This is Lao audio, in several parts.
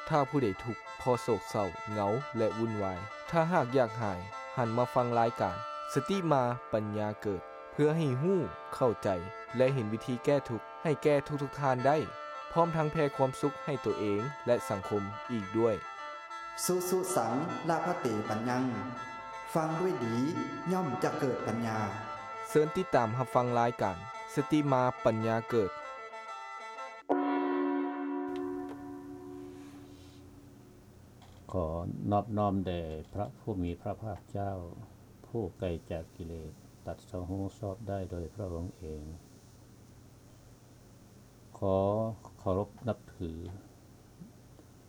ຖ້າຜູ້ໃດທຸກ ເພາະໂສກເສົ້າ ເຫງົາ ແລະ ວຸ່ນວາຍ, ຖ້າຫາກຢາກຫາຍ, ຫັນມາຟັງລາຍການ ສະຕິມາປັນຍາເກີດ ເພື່ອໃຫ້ຮູ້, ເຂົ້າໃຈ ແລະ ເຫັນວິທີແກ້ທຸກໃຫ້ແກ່ທຸກໆທ່ານໄດ້, ພ້ອມທັງແຜ່ຄວາມສຸກໃຫ້ຕົວເອງ ແລະ ສັງຄົມອີກດ້ວຍ. ສຸສຸ ສັງ ລະພະເຕ ປັນຍັງ ຟັງດ້ວຍດີ ຍ່ອມຈະເກີດປັນຍາ. ເຊີນຕິດຕາມຮັບຟັງລາຍການ ສະຕິມາປັນຍາເກີດ. ຂໍນອບນ້ອມແດ່ພະຜູ້ມີພະພາກເຈົ້າ ຜູ້ໄກຈາກກິເລດ ຕັດສະຮູ້ຊອບໄດ້ໂດຍພະອົງເອງ. ຂໍເຄົາລົບນັບຖື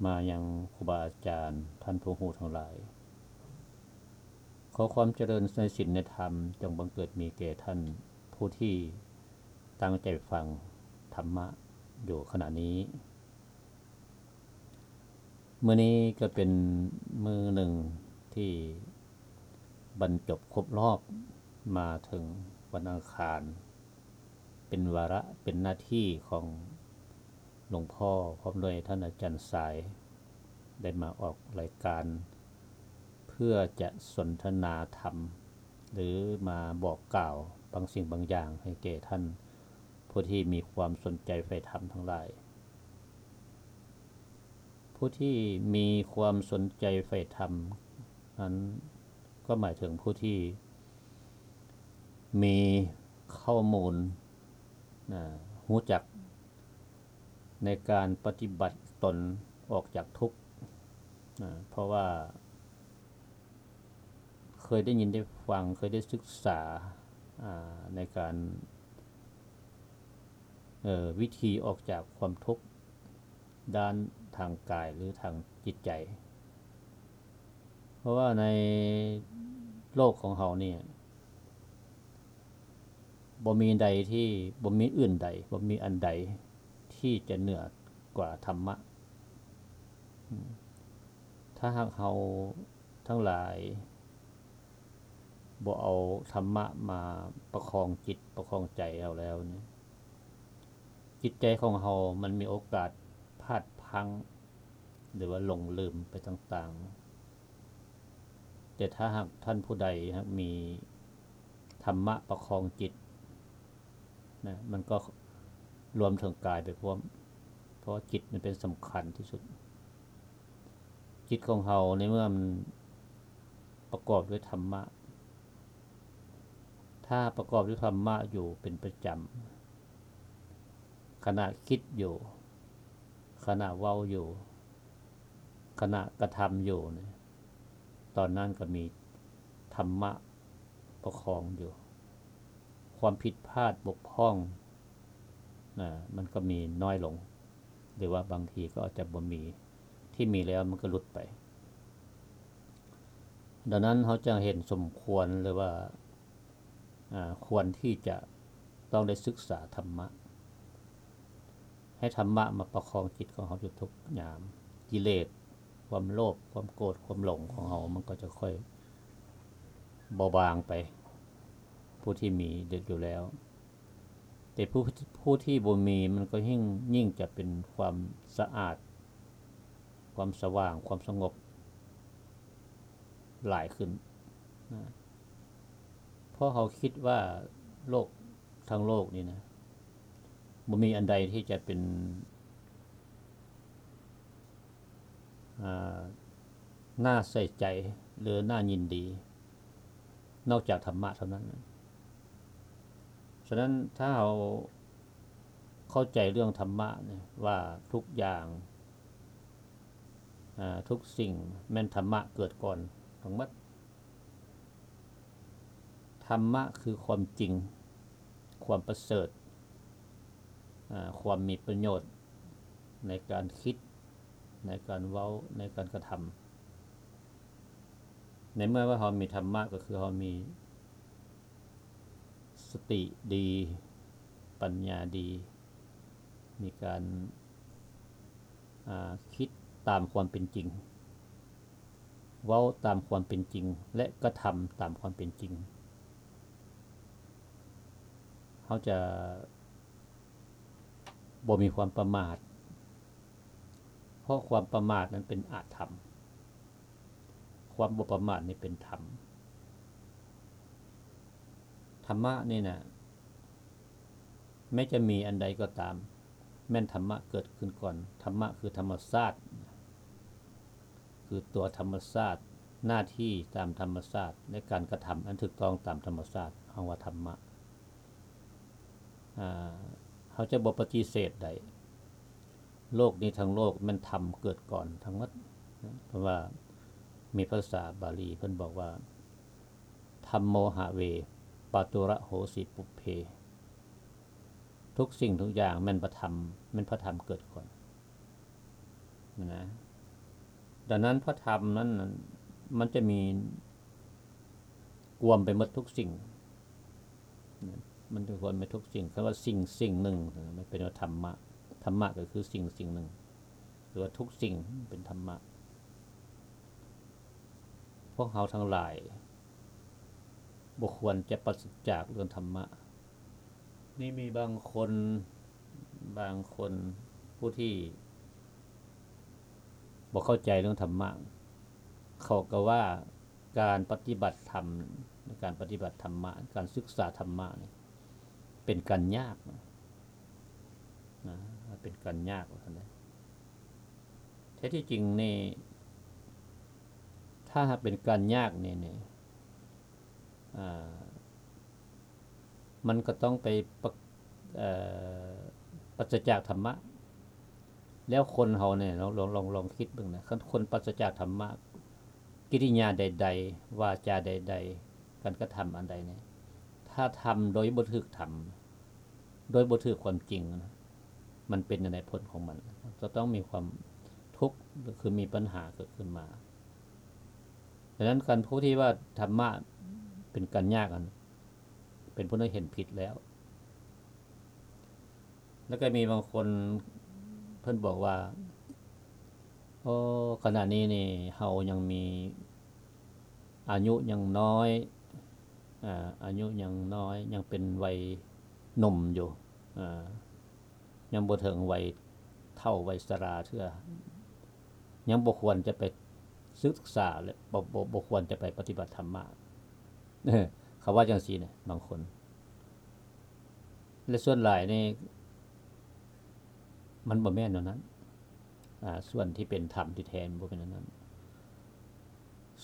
ມາຍັງຄູບາອາຈານ ທ່ານຜູ້ຮູ້ທັງຫຼາຍ. ຂໍຄວາມຈະເລີນໃນສິນໃນທຳ ຈົ່ງບັງເກີດມີແກ່ທ່ານຜູ້ທີ່ຕັ້ງໃຈຟັງທຳມະຢູ່ຂະນະນີ້. ມື້ນີ້ກໍເປັນມື້ໜຶ່ງທີ່ບັນຈົບຄົບຮອບມາເຖິງວັນອັງຄານ ເປັນວາລະ ເປັນໜ້າທີ່ຂອງຫຼວງພໍ່ ພ້ອມດ້ວຍທ່ານອາຈານຊາຍ ໄດ້ມາອອກລາຍການ ເພື່ອຈະສົນທະນາທຳ ຫຼື ມາບອກກ່າວບາງສິ່ງບາງຢ່າງໃຫ້ແກ່ທ່ານ ຜູ້ທີ່ມີຄວາມສົນໃຈໃຝ່ທຳທັງຫຼາຍ. ຜູ້ທີ່ມີຄວາມສົນໃຈໃຝ່ທຳນັ້ນ ກໍໝາຍເຖິງຜູ້ທີ່ມີຂໍ້ມູນ ນະ ຮູ້ຈັກໃນການປະຕິບັດຕົນອອກຈາກທຸກ ນະ ເພາະວ່າ ເຄີຍໄດ້ຍິນໄດ້ຟັງ, ເຄີຍໄດ້ສຶກສາ, ອາ, ໃນການ, ເອີ, ວິທີອອກຈາກຄວາມທຸກດ້ານທາງກາຍ ຫຼື ທາງຈິດໃຈ. ເພາະວ່າໃນໂລກຂອງເຮົານີ້ ບໍ່ມີໃດທີ່, ບໍ່ມີອື່ນໃດ, ບໍ່ມີອັນໃດທີ່ຈະເໜືອກວ່າທຳມະ. ອາ, ຖ້າຫາກເຮົາ ທັງຫຼາຍບໍ່ເອົາທຳມະມາປະຄອງຈິດປະຄອງໃຈເຮົາແລ້ວນີ້ ຈິດໃຈຂອງເຮົາມັນມີໂອກາດພາດພັ້ງ ຫຼືວ່າຫຼົງລືມໄປຕ່າງໆ. ແຕ່ຖ້າຫາກທ່ານຜູ້ໃດຫາກມີທຳມະປະຄອງຈິດນະ ມັນກໍລວມເຖິງກາຍໄປພ້ອມ ເພາະວ່າຈິດມັນເປັນສຳຄັນທີ່ສຸດ. ຈິດຂອງເຮົາໃນເມື່ອມັນປະກອບດ້ວຍທຳມະ, ຖ້າປະກອບດ້ວຍທຳມະຢູ່ເປັນປະຈຳ, ຂະນະຄິດຢູ່, ຂະນະເວົ້າຢູ່, ຂະນະກະທຳຢູ່ນີ້, ຕອນນັ້ນກໍມີທຳມະປະຄອງຢູ່. ຄວາມຜິດພາດບົກຜ່ອງນະ ມັນກໍມີນ້ອຍລົງ ຫຼືວ່າບາງທີກໍອາດຈະບໍ່ມີ, ທີ່ມີແລ້ວມັນກໍຫຼຸດໄປ. ດັ່ງນັ້ນເຮົາຈຶ່ງເຫັນສົມຄວນ ຫຼືວ່າ ອາ ຄວນທີ່ຈະຕ້ອງໄດ້ສຶກສາທຳມະ, ໃຫ້ທຳມະມາປະຄອງຈິດຂອງເຮົາຢູ່ທຸກຍາມ. ກິເລດ, ຄວາມໂລບ, ຄວາມໂກດ, ຄວາມຫຼົງຂອງເຮົາ ມັນກໍຈະຄ່ອຍເບົາບາງໄປ, ຜູ້ທີ່ມີຢູ່ແລ້ວ. ແຕ່ຜູ້ ຜູ້ທີ່ບໍ່ມີ ມັນກໍຍິ່ງ ຍິ່ງຈະເປັນຄວາມສະອາດ, ຄວາມສະຫວ່າງ, ຄວາມສະຫງົບຫຼາຍຂຶ້ນນະ. ເພາະເຮົາຄິດວ່າໂລກ ທັງໂລກນີ້ນະ ບໍ່ມີອັນໃດທີ່ຈະເປັນ ອາ ໜ້າໃສ່ໃຈ ຫຼື ໜ້າຍິນດີ ນອກຈາກທຳມະເທົ່ານັ້ນ. ສະນັ້ນ ຖ້າເຮົາເຂົ້າໃຈເລື່ອງທຳມະນີ້ວ່າ ທຸກຢ່າງ ອາ ທຸກສິ່ງແມ່ນທຳມະເກີດກ່ອນທັງໝົດ. ທຳມະຄືຄວາມຈິງ, ຄວາມປະເສີດ, ອາ ຄວາມມີປະໂຫຍດໃນການຄິດ, ໃນການເວົ້າ, ໃນການກະທຳ. ໃນເມື່ອວ່າເຮົາມີທຳມະ ກໍຄືເຮົາມີສະຕິດີ, ປັນຍາດີ, ມີການ ອາ ຄິດຕາມຄວາມເປັນຈິງ, ເວົ້າຕາມຄວາມເປັນຈິງ ແລະ ກະທຳຕາມຄວາມເປັນຈິງ. ເຮົາຈະບໍ່ມີຄວາມປະໝາດ, ເພາະຄວາມປະໝາດນັ້ນເປັນອະທຳ, ຄວາມບໍ່ປະໝາດນີ້ເປັນທຳ. ທຳມະນີ້ນະ ແມ້ຈະມີອັນໃດກໍຕາມ, ແມ່ນທຳມະເກີດຂຶ້ນກ່ອນ. ທຳມະຄືທຳມະຊາດ, ຄືຕົວທຳມະຊາດ, ໜ້າທີ່ຕາມທຳມະຊາດ ແລະ ການກະທຳອັນຖືກຕ້ອງຕາມທຳມະຊາດ, ເຮົາວ່າທຳມະ. ອາ ເຮົາຈະບໍ່ປະຕິເສດໄດ້. ໂລກນີ້ທັງໂລກແມ່ນທຳເກີດກ່ອນທັງໝົດ, ເພາະວ່າມີພາສາບາລີເພິ່ນບອກວ່າ ທຳໂມຫະເວ ປາຕຸລະໂຫສິ ປຸບເພ. ທຸກສິ່ງທຸກຢ່າງແມ່ນພະທຳ, ແມ່ນພະທຳເກີດກ່ອນນະ. ດັ່ງນັ້ນພະທຳນັ້ນ ມັນຈະມີກວມໄປໝົດທຸກສິ່ງ, ມັນຈະກວມໄປທຸກສິ່ງ. ຄຳວ່າສິ່ງສິ່ງໜຶ່ງ ມັນເປັນວ່າທຳມະ, ທຳມະກໍຄືສິ່ງສິ່ງໜຶ່ງ ຫຼືວ່າທຸກສິ່ງເປັນທຳມະ. ພວກເຮົາທັງຫຼາຍບໍ່ຄວນຈະປາສະຈາກເລື່ອງທຳມະ. ນີ້ມີບາງຄົນ, ບາງຄົນຜູ້ທີ່ບໍ່ເຂົ້າໃຈເລື່ອງທຳມະ, ເຂົາກໍວ່າການປະຕິບັດທຳ, ການປະຕິບັດທຳມະ, ການສຶກສາທຳມະນີ້ເປັນການຍາກນະ, ເປັນການຍາກວ່າຊັ້ນເດ. ແທ້ທີ່ຈິງນີ້ ຖ້າຫາກເປັນການຍາກນີ້, ນີ້ ອາ ມັນກໍຕ້ອງໄປປະ ເອີ ປາສະຈາກທຳມະ. ແລ້ວຄົນເຮົານີ້ ລອງ ລອງ ລອງ ລອງຄິດເບິ່ງນະ, ຄັນຄົນປາສະຈາກທຳມະ, ກິລິຍາໃດໆ ວາຈາໃດໆ ການກະທຳອັນໃດນີ້ ຖ້າທຳໂດຍບໍ່ຖືກທຳ, ໂດຍບໍ່ຖືກຄວາມຈິງນະ, ມັນເປັນຈັ່ງໃດຜົນຂອງມັນ? ຈະຕ້ອງມີຄວາມທຸກ ຫຼື ຄືມີບັນຫາເກີດຂຶ້ນມາ. ດັ່ງນັ້ນ ການຜູ້ທີ່ວ່າທຳມະເປັນການຍາກນັ້ນ ເປັນຜູ້ທີ່ເຫັນຜິດແລ້ວ. ແລ້ວກໍມີບາງຄົນເພິ່ນບອກວ່າ ໂອ້ ຂະນະນີ້ນີ້ເຮົາຍັງມີອາຍຸຍັງນ້ອຍ, ອາ ອາຍຸຍັງນ້ອຍ, ຍັງເປັນໄວໜຸ່ມຢູ່, ອາ ຍັງບໍ່ເຖິງໄວເຖົ້າໄວຊະລາເທື່ອ, ຍັງບໍ່ຄວນຈະໄປສຶກສາ ແລະ ບໍ່ ບໍ່ ບໍ່ຄວນຈະໄປປະຕິບັດທຳມະ. ເຂົາວ່າຈັ່ງຊີ້ນະ ບາງຄົນ. ແລະ ສ່ວນຫຼາຍນີ້ ມັນບໍ່ແມ່ນແນວນັ້ນ. ອາ ສ່ວນທີ່ເປັນທຳທີ່ແທ້ ມັນບໍ່ແມ່ນແນວນັ້ນ.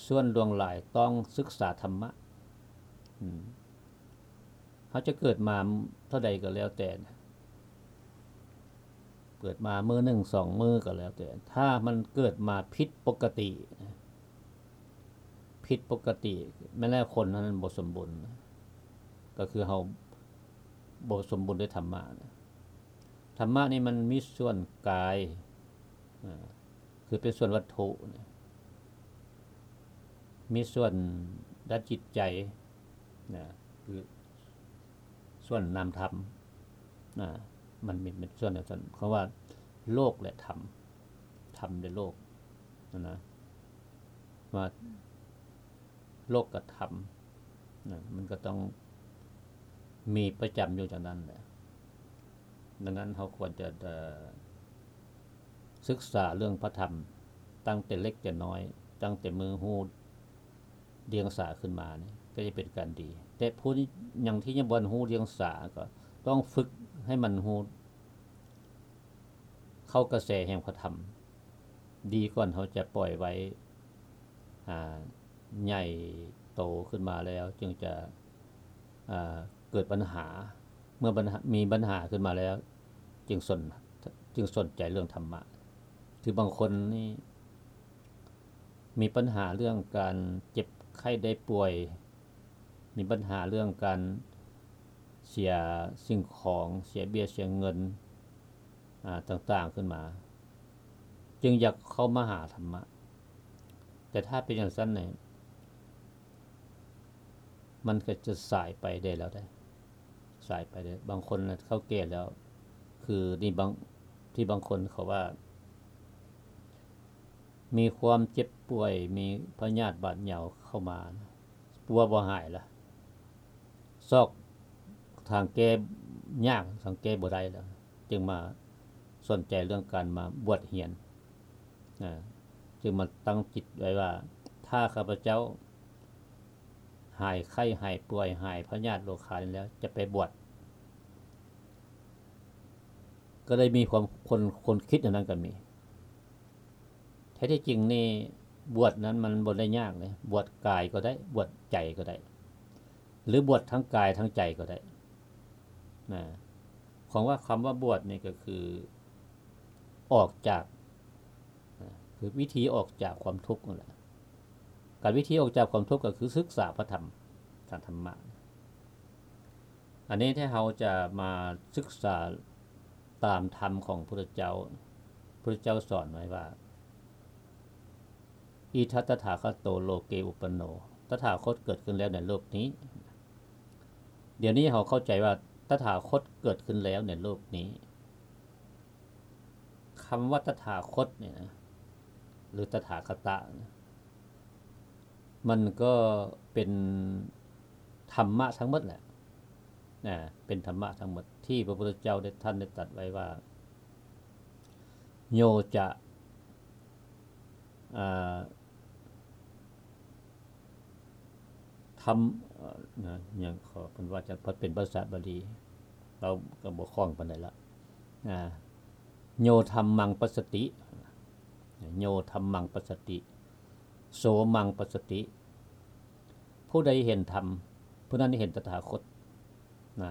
ສ່ວນຫຼວງຫຼາຍຕ້ອງສຶກສາທຳມະ. ອືມ ເຮົາຈະເກີດມາເທົ່າໃດກໍແລ້ວແຕ່ນະ, ເກີດມາມື້ໜຶ່ງສອງມື້ກໍແລ້ວແຕ່, ຖ້າມັນເກີດມາຜິດປົກກະຕິ, ຜິດປົກກະຕິ, ແມ່ນແລ້ວຄົນນັ້ນບໍ່ສົມບູນ, ກໍຄືເຮົາບໍ່ສົມບູນດ້ວຍທຳມະ. ທຳມະນີ້ມັນມີສ່ວນກາຍ, ອາ ຄືເປັນສ່ວນວັດຖຸນະ, ມີສ່ວນດ້ານຈິດໃຈນະ, ຄືສ່ວນນາມທຳນະ, ມັນມີເປັນສ່ວນຈັ່ງຊັ້ນ. ເຂົາວ່າໂລກ ແລະ ທຳ, ທຳ ແລະ ໂລກນະ, ວ່າໂລກກະທຳນະ, ມັນກໍຕ້ອງມີປະຈຳຢູ່ຈັ່ງນັ້ນແຫຼະ. ດັ່ງນັ້ນ ເຮົາຄວນຈະ ເອີ ສຶກສາເລື່ອງພະທຳຕັ້ງແຕ່ເລັກແຕ່ນ້ອຍ, ຕັ້ງແຕ່ມື້ຮູ້ດຽງສາຂຶ້ນມານີ້ ກໍຈະເປັນການດີ. ແຕ່ຜູ້ທີ່ຍັງ ທີ່ຍັງບໍ່ທັນຮູ້ດຽງສາ ກໍຕ້ອງຝຶກໃຫ້ມັນຮູ້ ເຂົ້າກະແສແຫ່ງພະທຳ ດີກ່ອນເຮົາຈະປ່ອຍໄວ້ ອາ ໃຫຍ່ໂຕຂຶ້ນມາແລ້ວຈຶ່ງຈະ ອາ ເກີດບັນຫາ. ເມື່ອບັນຫາ ມີບັນຫາຂຶ້ນມາແລ້ວຈຶ່ງສົນ ຈຶ່ງສົນໃຈເລື່ອງທຳມະ. ຄືບາງຄົນນີ້ມີບັນຫາເລື່ອງການເຈັບໄຂ້ໄດ້ປ່ວຍ, ມີບັນຫາເລື່ອງການເສຍສິ່ງຂອງ, ເສຍເບ້ຍເສຍເງິນ ອາ ຕ່າງໆຂຶ້ນມາ, ຈຶ່ງຢາກເຂົ້າມາຫາທຳມະ. ແຕ່ຖ້າເປັນຈັ່ງຊັ້ນນີ້ ມັນກໍຈະສາຍໄປໄດ້ແລ້ວເດ້, ສາຍໄປໄດ້. ບາງຄົນນະເຂົາແກ່ແລ້ວ, ຄືນີ້ບາງ ທີ່ບາງຄົນເຂົາວ່າ ມີຄວາມເຈັບປ່ວຍ, ມີພະຍາດບາດເຍົາເຂົ້າມາ, ປົວບໍ່ຫາຍລະ, ຊອກທາງແກ້ຍາກ, ທາງແກ້ບໍ່ໄດ້ລະ, ຈຶ່ງມາສົນໃຈເລື່ອງການມາບວດຮຽນ. ຈຶ່ງມາຕັ້ງຈິດໄວ້ວ່າ ຖ້າຂ້າພະເຈົ້າຫາຍໄຂ້ ຫາຍປ່ວຍ ຫາຍພະຍາດໂລຄານີ້ແລ້ວ ຈະໄປບວດ. ກໍໄດ້ມີຄວາມ ຄົນ ຄົນຄິດແນວນັ້ນກໍມີ. ແທ້ທີ່ຈິງນີ້ ບວດນັ້ນມັນບໍ່ໄດ້ຍາກເດ້ ບວດກາຍກໍໄດ້ ບວດໃຈກໍໄດ້ ຫຼືບວດທັງກາຍທັງໃຈກໍໄດ້ນະ. ຂອງວ່າ ຄຳວ່າບວດນີ້ກໍຄືອອກຈາກ ນະ ຄືວິທີອອກຈາກຄວາມທຸກນັ້ນແຫຼະ. ການ ວິທີອອກຈາກຄວາມທຸກກໍຄືສຶກສາພະທຳ ທາງທຳມະ. ອັນນີ້ທີ່ເຮົາຈະມາສຶກສາຕາມທຳຂອງພຸດທະເຈົ້າ, ພຸດທະເຈົ້າສອນໄວ້ວ່າ ອິດຖະຕະຖາຄະໂຕ ໂລເກອຸປະໂນ ຕະຖາຄົດເກີດຂຶ້ນແລ້ວໃນໂລກນີ້. ດຽວນີ້ເຮົາເຂົ້າໃຈວ່າຕະຖາຄົດເກີດຂຶ້ນແລ້ວໃນໂລກນີ້. ຄຳວ່າຕະຖາຄົດນີ້ນະ ຫຼື ຕະຖາຄະຕະນະ ມັນກໍເປັນທຳມະທັງໝົດແຫຼະນະ, ເປັນທຳມະທັງໝົດທີ່ພະພຸດທະເຈົ້າໄດ້ ທ່ານໄດ້ຕັດໄວ້ວ່າ ໂຍຈະ ອ່າ ທຳ ເອີ ນະ ຫຍັງ ຂໍເພິ່ນວ່າຈະເປັນພາສາບາລີ ເຮົາກໍບໍ່ຄ່ອງປານໃດລະ ນະ. ໂຍທຳມັງປັດສະຕິ ໂຍທຳມັງປັດສະຕິ ໂສມັງປັດສະຕິ ຜູ້ໃດເຫັນທຳ ຜູ້ນັ້ນເຫັນຕະຖາຄົດນະ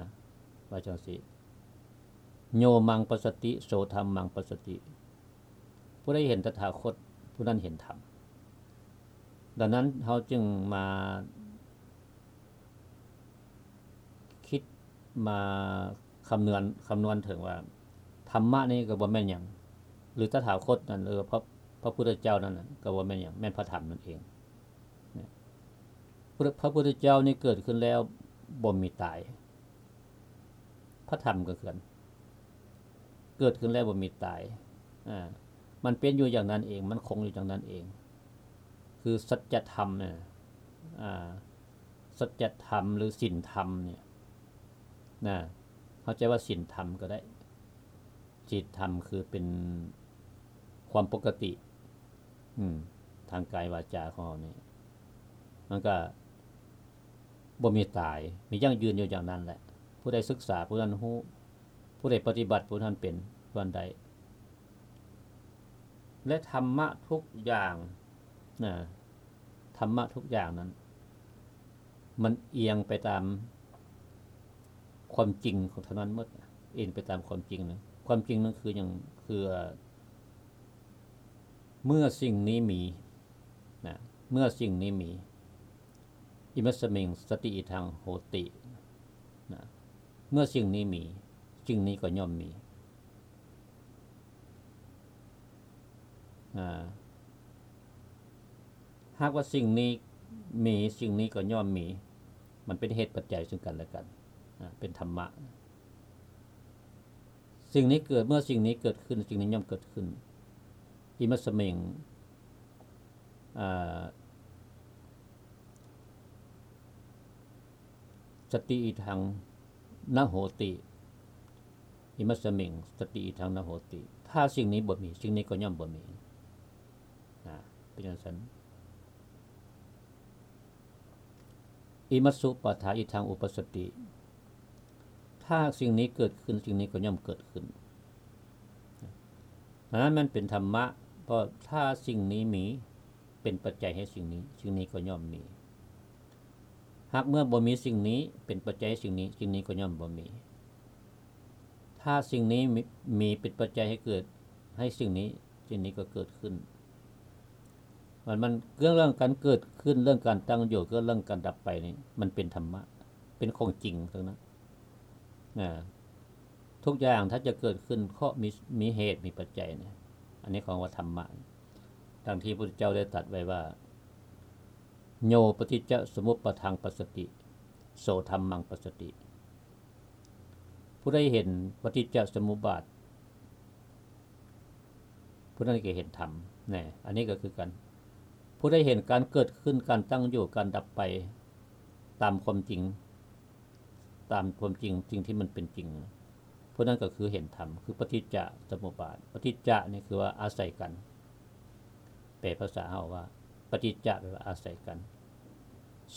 ວ່າຈັ່ງຊີ້. ໂຍມັງປັດສະຕິ ໂສທຳມັງປັດສະຕິ ຜູ້ໃດເຫັນຕະຖາຄົດ ຜູ້ນັ້ນເຫັນທຳ. ດັ່ງນັ້ນເຮົາຈຶ່ງມາຄິດ ມາຄຳນວນ ຄຳນວນເຖິງວ່າ ທຳມະນີ້ກໍບໍ່ແມ່ນຫຍັງ ຫຼື ຕະຖາຄົດນັ້ນ ຫຼື ພະ ພະພຸດທະເຈົ້ານັ້ນນະ ກໍບໍ່ແມ່ນຫຍັງ ແມ່ນພະທຳນັ້ນເອງ. ພະ ພະພຸດທະເຈົ້ານີ້ເກີດຂຶ້ນແລ້ວບໍ່ມີຕາຍ. ພະທຳກໍຄືກັນ ເກີດຂຶ້ນແລ້ວບໍ່ມີຕາຍ ອາ ມັນເປັນຢູ່ຢ່າງນັ້ນເອງ ມັນຄົງຢູ່ຢ່າງນັ້ນເອງ ຄືສັດຈະທຳນະ ອາ ສັດຈະທຳ ຫຼື ສິນທຳນີ້ນະ ເຂົ້າໃຈວ່າສິນທຳກໍໄດ້. ສິນທຳຄືເປັນຄວາມປົກກະຕິ ອາ ທາງກາຍວາຈາຂອງເຮົານີ້ ມັນກໍບໍ່ມີຕາຍ ມີຢັ້ງຢືນຢູ່ຢ່າງນັ້ນແຫຼະ. ຜູ້ໃດສຶກສາ ຜູ້ນັ້ນຮູ້ ຜູ້ໃດປະຕິບັດ ຜູ້ນັ້ນເປັນ ຜູ້ນັ້ນໄດ້. ແລະ ທຳມະທຸກຢ່າງນະ ທຳມະທຸກຢ່າງນັ້ນ ມັນອຽງໄປຕາມຄວາມຈິງຂອງເທົ່ານັ້ນໝົດ ເອງໄປຕາມຄວາມຈິງນະ. ຄວາມຈິງນັ້ນຄືຫຍັງ? ຄື ເມື່ອສິ່ງນີ້ມີນະ ເມື່ອສິ່ງນີ້ມີ ອິມັດສະມິງ ສະຕິອິທັງ ໂຫຕິນະ ເມື່ອສິ່ງນີ້ມີ ສິ່ງນີ້ກໍຍ່ອມມີ. ອາ ຫາກວ່າສິ່ງນີ້ມີ ສິ່ງນີ້ກໍຍ່ອມມີ ມັນເປັນເຫດປັດໄຈເຊິ່ງກັນແລະກັນ ອາ ເປັນທຳມະ. ສິ່ງນີ້ເກີດ ເມື່ອສິ່ງນີ້ເກີດຂຶ້ນ ສິ່ງນີ້ຍ່ອມເກີດຂຶ້ນ. ອິມັດສະມິງ ອາ ສະຕິອິທັງນະໂຫຕິ ອິມັດສະມິງ ສະຕິອິທັງນະໂຫຕິ. ຖ້າສິ່ງນີ້ບໍ່ມີ ສິ່ງນີ້ກໍຍ່ອມບໍ່ມີນະ ເປັນຈັ່ງຊັ້ນ. ອິມັດສຸປາທາອິທັງອຸປັດສະຕິ ຖ້າສິ່ງນີ້ເກີດຂຶ້ນ ສິ່ງນີ້ກໍຍ່ອມເກີດຂຶ້ນ. ອັນນັ້ນມັນເປັນທຳມະ ເພາະຖ້າສິ່ງນີ້ມີ ເປັນປັດໄຈໃຫ້ສິ່ງນີ້ ສິ່ງນີ້ກໍຍ່ອມມີ. ຫາກເມື່ອບໍ່ມີສິ່ງນີ້ເປັນປັດໄຈໃຫ້ສິ່ງນີ້ ສິ່ງນີ້ກໍຍ່ອມບໍ່ມີ. ຖ້າສິ່ງນີ້ມີ ມີເປັນປັດໄຈໃຫ້ເກີດ ໃຫ້ສິ່ງນີ້ ສິ່ງນີ້ກໍເກີດຂຶ້ນ. ມັນ ມັນເລື່ອງການເກີດຂຶ້ນ ເລື່ອງການຕັ້ງຢູ່ ເລື່ອງການດັບໄປນີ້ ມັນເປັນທຳມະ ເປັນຂອງຈິງທັງນັ້ນນະ. ທຸກຢ່າງຖ້າຈະເກີດຂຶ້ນ ເພາະມີ ມີເຫດມີປັດໄຈນະ. ອັນນີ້ເຂົາວ່າທຳມະ ດັ່ງທີ່ພະພຸດທະເຈົ້າໄດ້ຕັດໄວ້ວ່າ ໂຍປະຕິດຈະສະມຸດປາທັງປັດສະຕິ ໂສທຳມັງປັດສະຕິ. ຜູ້ໃດເຫັນປະຕິດຈະສະມຸດບາດ ຜູ້ນັ້ນກໍເຫັນທຳນະ. ອັນນີ້ກໍຄືກັນ ຜູ້ໃດເຫັນການເກີດຂຶ້ນ ການຕັ້ງຢູ່ ການດັບໄປ ຕາມຄວາມຈິງ ຕາມຄວາມຈິງ ສິ່ງທີ່ມັນເປັນຈິງ ຜູ້ນັ້ນກໍຄືເຫັນທຳ ຄືປະຕິດຈະສະມຸດບາດ. ປະຕິດຈະນີ້ຄືວ່າອາໄສກັນ ແປພາສາເຮົາວ່າ ປະຕິດຈະ ແປວ່າອາໄສກັນ,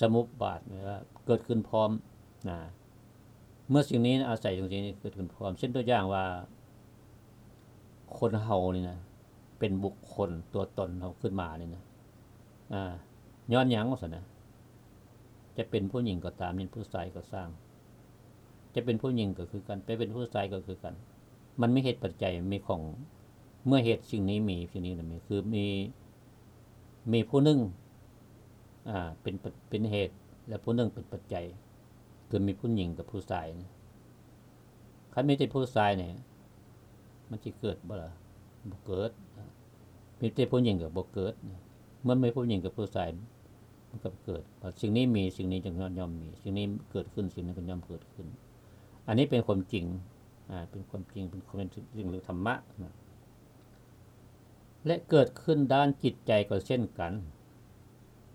ສະມຸບບາດ ແປວ່າເກີດຂຶ້ນພ້ອມນະ. ເມື່ອສິ່ງນີ້ອາໄສສິ່ງນີ້ເກີດຂຶ້ນພ້ອມ, ເຊັ່ນຕົວຢ່າງວ່າ ຄົນເຮົານີ້ນະ ເປັນບຸກຄົນຕົວຕົນເຮົາຂຶ້ນມານີ້ນະ ອາ ຍ້ອນຫຍັງວ່າຊັ້ນນະ? ຈະເປັນຜູ້ຍິງກໍຕາມ, ເປັນຜູ້ຊາຍກໍຊ່າງ, ຈະເປັນຜູ້ຍິງກໍຄືກັນ, ໄປເປັນຜູ້ຊາຍກໍຄືກັນ, ມັນມີເຫດປັດໄຈ ມີຂອງ ເມື່ອເຫດສິ່ງນີ້ມີ, ສິ່ງນີ້ນະມີ ຄືມີ ມີຜູ້ໜຶ່ງ ອາ ເປັນ ເປັນເຫດ ແລະ ຜູ້ໜຶ່ງເປັນປັດໄຈ ຄືມີຜູ້ຍິງກັບຜູ້ຊາຍນະ. ຄັນມີແຕ່ຜູ້ຊາຍນີ້ ມັນຊິເກີດບໍ່ລະ? ບໍ່ເກີດ. ມີແຕ່ຜູ້ຍິງກໍບໍ່ເກີດ. ເມື່ອມີຜູ້ຍິງກັບຜູ້ຊາຍ ມັນກໍເກີດ. ວ່າສິ່ງນີ້ມີ, ສິ່ງນີ້ຈຶ່ງ ຍ່ອມມີ, ສິ່ງນີ້ເກີດຂຶ້ນ, ສິ່ງນັ້ນກໍຍ່ອມເກີດຂຶ້ນ. ອັນນີ້ເປັນຄວາມຈິງ ອາ ເປັນຄວາມຈິງ, ເປັນຄວາມເປັນສິ່ງເລື່ອງທຳມະນະ. ແລະ ເກີດຂຶ້ນດ້ານຈິດໃຈກໍເຊັ່ນກັນ,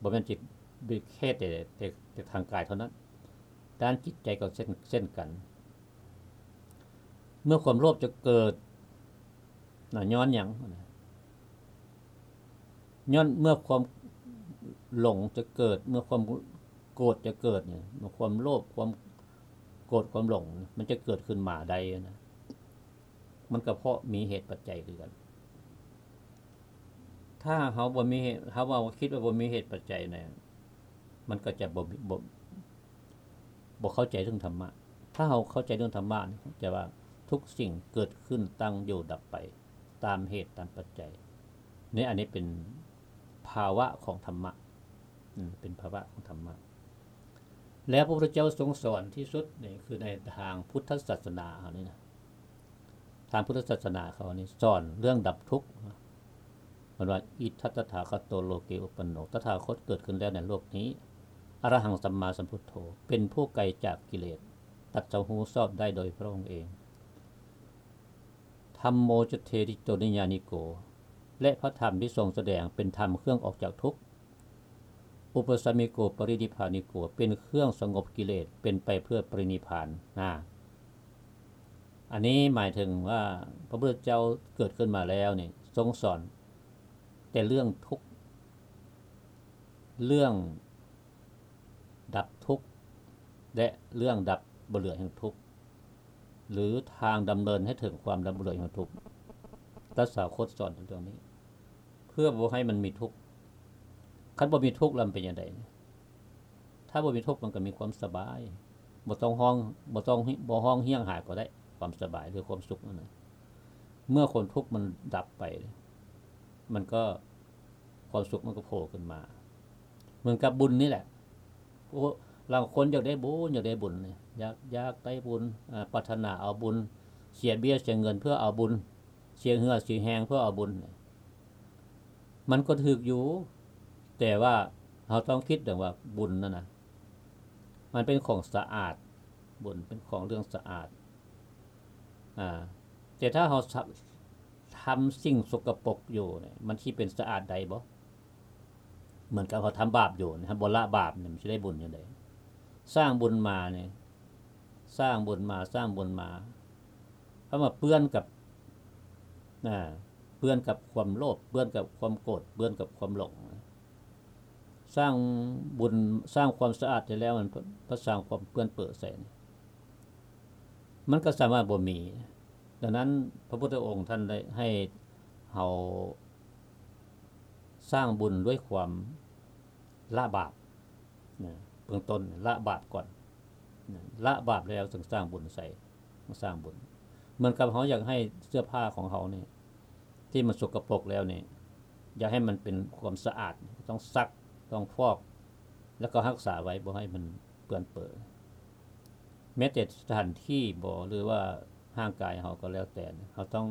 ບໍ່ແມ່ນຈິດ ແຄ່ແຕ່ ແຕ່ ແຕ່ທາງກາຍເທົ່ານັ້ນ, ດ້ານຈິດໃຈກໍເຊັ່ນ ເຊັ່ນກັນ. ເມື່ອຄວາມໂລບຈະເກີດນະ ຍ້ອນຫຍັງ? ຍ້ອນເມື່ອຄວາມຫຼົງຈະເກີດ, ເມື່ອຄວາມໂກດຈະເກີດນີ້, ເມື່ອຄວາມໂລບ, ຄວາມໂກດ, ຄວາມຫຼົງ ມັນຈະເກີດຂຶ້ນມາໄດ້ນະ, ມັນກໍເພາະມີເຫດປັດໄຈຄືກັນ. ຖ້າເຮົາບໍ່ມີເຫດ, ເຮົາເວົ້າ ຄິດວ່າບໍ່ມີເຫດປັດໄຈນະ, ມັນກໍຈະບໍ່ມີ ບໍ່ ບໍ່ເຂົ້າໃຈເລື່ອງທຳມະ. ຖ້າເຮົາເຂົ້າໃຈເລື່ອງທຳມະນີ້ ຈະວ່າທຸກສິ່ງເກີດຂຶ້ນ, ຕັ້ງຢູ່, ດັບໄປ ຕາມເຫດຕາມປັດໄຈ. ນີ້ ອັນນີ້ເປັນພາວະຂອງທຳມະ, ເປັນພາວະຂອງທຳມະ. ແລ້ວພະພຸດທະເຈົ້າຊົງສອນທີ່ສຸດນີ້ ຄືໃນທາງພຸດທະສາສະໜາເຮົານີ້ນະ, ທາງພຸດທະສາສະໜາເຮົານີ້ສອນເລື່ອງດັບທຸກ. ເພິ່ນວ່າ ອິດຖະຕະຖາຄະໂຕ ໂລເກອຸປັນໂນ, ຕະຖາຄົດເກີດຂຶ້ນແລ້ວໃນໂລກນີ້, ອະລະຫັງ ສຳມາສຳພຸດໂທ, ເປັນຜູ້ໄກຈາກກິເລດ, ຕັດສະຮູ້ຊອບໄດ້ໂດຍພະອົງເອງ. ທຳໂມ ຈະເທສິໂຕ ນິຍານິໂກ, ແລະ ພະທຳທີ່ຊົງສະແດງເປັນທຳເຄື່ອງອອກຈາກທຸກ. ອຸປະສະມິໂກ ປະລິນິບພານິໂກ, ເປັນເຄື່ອງສະຫງົບກິເລດ, ເປັນໄປເພື່ອປະລິນິບພານນະ. ອັນນີ້ໝາຍເຖິງວ່າ ພະພຸດທະເຈົ້າເກີດຂຶ້ນມາແລ້ວນີ້ ຊົງສອນແຕ່ເລື່ອງທຸກ, ເລື່ອງດັບທຸກ ແລະ ເລື່ອງດັບບໍ່ເຫຼືອແຫ່ງທຸກ ຫຼື ທາງດຳເນີນໃຫ້ເຖິງຄວາມດັບບໍ່ເຫຼືອແຫ່ງທຸກ. ຕະຖາຄົດສອນເລື່ອງນີ້ ເພື່ອບໍ່ໃຫ້ມັນມີທຸກ. ຄັນບໍ່ມີທຸກແລ້ວມັນເປັນຈັ່ງໃດ? ຖ້າບໍ່ມີທຸກມັນກໍມີຄວາມສະບາຍ, ບໍ່ຕ້ອງຮ້ອງ, ບໍ່ຕ້ອງ, ບໍ່ຮ້ອງຮຽງຫາກໍໄດ້, ຄວາມສະບາຍ ຫຼື ຄວາມສຸກນັ້ນນະ. ເມື່ອຄວາມທຸກມັນດັບໄປ, ມັນກໍ ຄວາມສຸກມັນກໍໂຜຂຶ້ນມາ. ເໝືອນກັບບຸນນີ້ແຫຼະ, ໂອ້ ລາງຄົນຢາກໄດ້ບຸນ, ຢາກໄດ້ບຸນ, ຢາກ, ຢາກໄດ້ບຸນ, ອາ, ປາດຖະໜາເອົາບຸນ, ເສຍເບ້ຍເສຍເງິນເພື່ອເອົາບຸນ, ເສຍເຫື່ອເສຍແຮງເພື່ອເອົາບຸນ. ມັນກໍຖືກຢູ່, ແຕ່ວ່າເຮົາຕ້ອງຄິດເຖິງວ່າບຸນນັ້ນນະ ມັນເປັນຂອງສະອາດ, ບຸນເປັນຂອງເລື່ອງສະອາດ. ອາ, ແຕ່ຖ້າເຮົາ ທຳສິ່ງສົກກະປົກຢູ່ນີ້ ມັນຊິເປັນສະອາດໄດ້ບໍ່? ເໝືອນກັບເຮົາທຳບາບຢູ່ນີ້, ເຮົາບໍ່ລະບາບນີ້ ມັນຊິໄດ້ບຸນຈັ່ງໃດ? ສ້າງບຸນມານີ້, ສ້າງບຸນມາ, ສ້າງບຸນມາ, ເຂົ້າມາເປື້ອນກັບ, ອາ, ເປື້ອນກັບຄວາມໂລບ, ເປື້ອນກັບຄວາມໂກດ, ເປື້ອນກັບຄວາມຫຼົງ. ສ້າງບຸນ, ສ້າງຄວາມສະອາດໄດ້ແລ້ວ, ມັນ ມັນສ້າງຄວາມເປື້ອນເປິໃສ່ນີ້ ມັນກໍສາມາດບໍ່ມີ. ດັ່ງນັ້ນ ພະພຸດທະອົງທ່ານໄດ້ໃຫ້ເຮົາສ້າງບຸນດ້ວຍຄວາມລະບາບນະ, ເບື້ອງຕົ້ນລະບາບກ່ອນນະ, ລະບາບແລ້ວຈຶ່ງສ້າງບຸນໃສ່, ສ້າງບຸນ. ເໝືອນກັບເຮົາຢາກໃຫ້ເສື້ອຜ້າຂອງເຮົານີ້ ທີ່ມັນສົກກະປົກແລ້ວນີ້ ຢາກໃຫ້ມັນເປັນຄວາມສະອາດ, ຕ້ອງຊັກ, ຕ້ອງຟອກ, ແລ້ວກໍຮັກສາໄວ້ ບໍ່ໃຫ້ມັນເປື້ອນເປິ. ແມ້ແຕ່ສະຖານທີ່ບໍ ຫຼືວ່າຮ່າງກາຍເຮົາກໍແລ້ວແຕ່, ເຮົາຕ້ອງ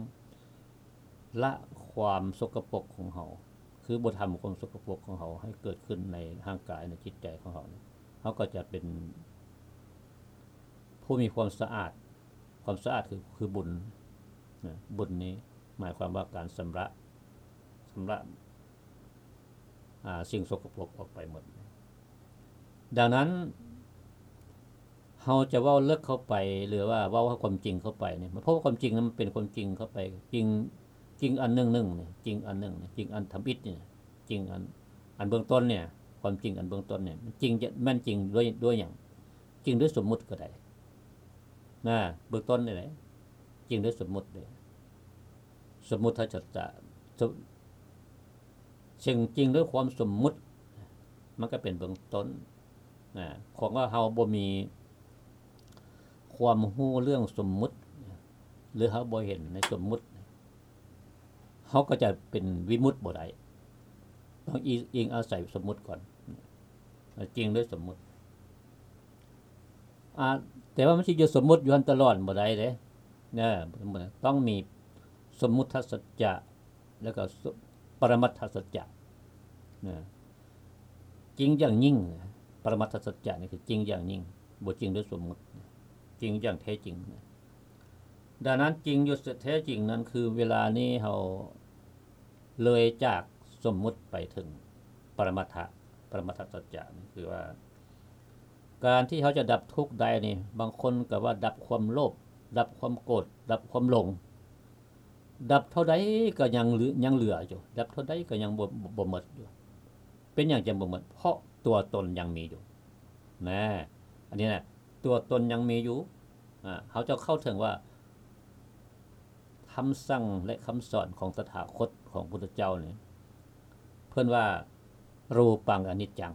ລະຄວາມສົກກະປົກຂອງເຮົາ, ຄືບໍ່ທຳຄວາມສົກກະປົກຂອງເຮົາໃຫ້ເກີດຂຶ້ນໃນຮ່າງກາຍ, ໃນຈິດໃຈຂອງເຮົາ, ເຮົາກໍຈະເປັນຜູ້ມີຄວາມສະອາດ. ຄວາມສະອາດຄື, ຄືບຸນນະ, ບຸນນີ້ໝາຍຄວາມວ່າການຊຳລະ, ຊຳລະ ອາ, ສິ່ງສົກກະປົກອອກໄປໝົດ. ດັ່ງນັ້ນ ເຮົາຈະເວົ້າເລິກເຂົ້າໄປ ຫຼືວ່າເວົ້າຄວາມຈິງເຂົ້າໄປນີ້, ເພາະວ່າຄວາມຈິງນັ້ນມັນເປັນຄວາມຈິງເຂົ້າໄປ, ຈິງ, ຈິງອັນໜຶ່ງໜຶ່ງນີ້, ຈິງອັນໜຶ່ງນີ້, ຈິງອັນທຳອິດນີ້, ຈິງອັນ ອັນເບື້ອງຕົ້ນນີ້ ຄວາມຈິງອັນເບື້ອງຕົ້ນນີ້ ມັນຈິງ ແມ່ນຈິງດ້ວຍ ດ້ວຍຫຍັງ? ຈິງດ້ວຍສົມມຸດກໍໄດ້ນະ ເບື້ອງຕົ້ນນີ້ແຫຼະ ຈິງດ້ວຍສົມມຸດເດ້ ສົມມຸດທັດສະຈະ ສົມ ເຊິ່ງຈິງດ້ວຍຄວາມສົມມຸດ ມັນກໍເປັນເບື້ອງຕົ້ນນະ ຂອງວ່າເຮົາບໍ່ມີຄວາມຮູ້ເລື່ອງສົມມຸດ ຫຼື ເຮົາບໍ່ເຫັນໃນສົມມຸດ ເຮົາກໍຈະເປັນວິມຸດບໍ່ໄດ້ ຕ້ອງອີງ ອີງອາໄສສົມມຸດກ່ອນ ຈິງດ້ວຍສົມມຸດ ອາ ແຕ່ວ່າມັນຊິຢູ່ສົມມຸດຢູ່ຫັ້ນຕະຫຼອດບໍ່ໄດ້ເດ້ ເອີ ຕ້ອງມີສົມມຸດທັດສັດຈະ ແລ້ວກໍປະລະມັດທັດສັດຈະນະ ຈິງຢ່າງຍິ່ງ ປະລະມັດທັດສັດຈະນີ້ຄືຈິງຢ່າງຍິ່ງ ບໍ່ຈິງດ້ວຍສົມມຸດ ຈິງຢ່າງແທ້ຈິງນະ. ດັ່ງນັ້ນ ຈິງຢູ່ແທ້ຈິງນັ້ນ ຄືເວລານີ້ເຮົາເລີຍຈາກສົມມຸດໄປເຖິງປະລະມັດທະ ປະລະມັດທະສັດຈະ ຄືວ່າ ການທີ່ເຮົາຈະດັບທຸກໄດ້ນີ້ ບາງຄົນກໍວ່າດັບຄວາມໂລບ ດັບຄວາມໂກດ ດັບຄວາມຫຼົງ ດັບເທົ່າໃດກໍຍັງເຫຼືອ ຍັງເຫຼືອຢູ່ ດັບເທົ່າໃດກໍຍັງບໍ່ ບໍ່ໝົດຢູ່. ເປັນຫຍັງຈຶ່ງບໍ່ໝົດ? ເພາະຕົວຕົນຍັງມີຢູ່ນະ ອັນນີ້ນະ ຕົວຕົນຍັງມີຢູ່. ອາ ເຮົາຈະເຂົ້າເຖິງວ່າ ຄຳສັ່ງ ແລະ ຄຳສອນຂອງຕະຖາຄົດ ຂອງພຸດທະເຈົ້ານີ້ ເພິ່ນວ່າ ຮູປັງອະນິດຈັງ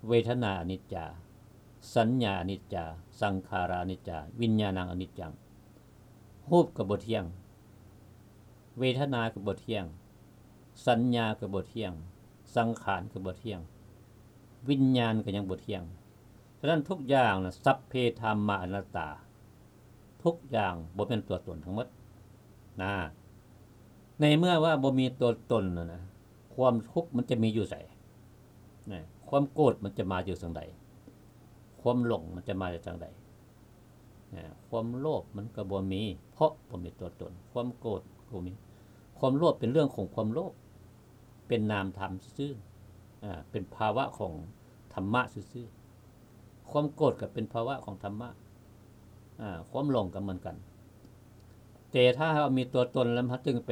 ເວທະນາອະນິດຈາ ສັນຍາອະນິດຈາ ສັງຂາລາອະນິດຈາ ວິນຍານັງອະນິດຈັງ ຮູບກໍບໍ່ທ່ຽງ ເວທະນາກໍບໍ່ທ່ຽງ ສັນຍາກໍບໍ່ທ່ຽງ ສັງຂານກໍບໍ່ທ່ຽງ ວິນຍານກໍຍັງບໍ່ທ່ຽງ. ສະນັ້ນທຸກຢ່າງນະ ສັບເພທຳມາອະນັດຕາ ທຸກຢ່າງບໍ່ແມ່ນຕົວຕົນທັງໝົດນະ. ໃນເມື່ອວ່າບໍ່ມີຕົວຕົນນະ ຄວາມທຸກມັນຈະມີຢູ່ໃສນະ? ຄວາມໂກດມັນຈະມາຢູ່ທາງໃດ? ຄວາມຫຼົງມັນຈະມາຈາກທາງໃດ? ນະ ຄວາມໂລບມັນກໍບໍ່ມີ ເພາະບໍ່ມີຕົວຕົນ. ຄວາມໂກດກໍບໍ່ມີ. ຄວາມໂລບເປັນເລື່ອງຂອງຄວາມໂລບ ເປັນນາມທຳຊື່ໆ ອາ ເປັນພາວະຂອງທຳມະຊື່ໆ. ຄວາມໂກດກໍເປັນພາວະຂອງທຳມະ ອາ ຄວາມຫຼົງກໍເໝືອນກັນ. ແຕ່ຖ້າເຮົາມີຕົວຕົນແລ້ວ ເຮົາຈຶ່ງໄປ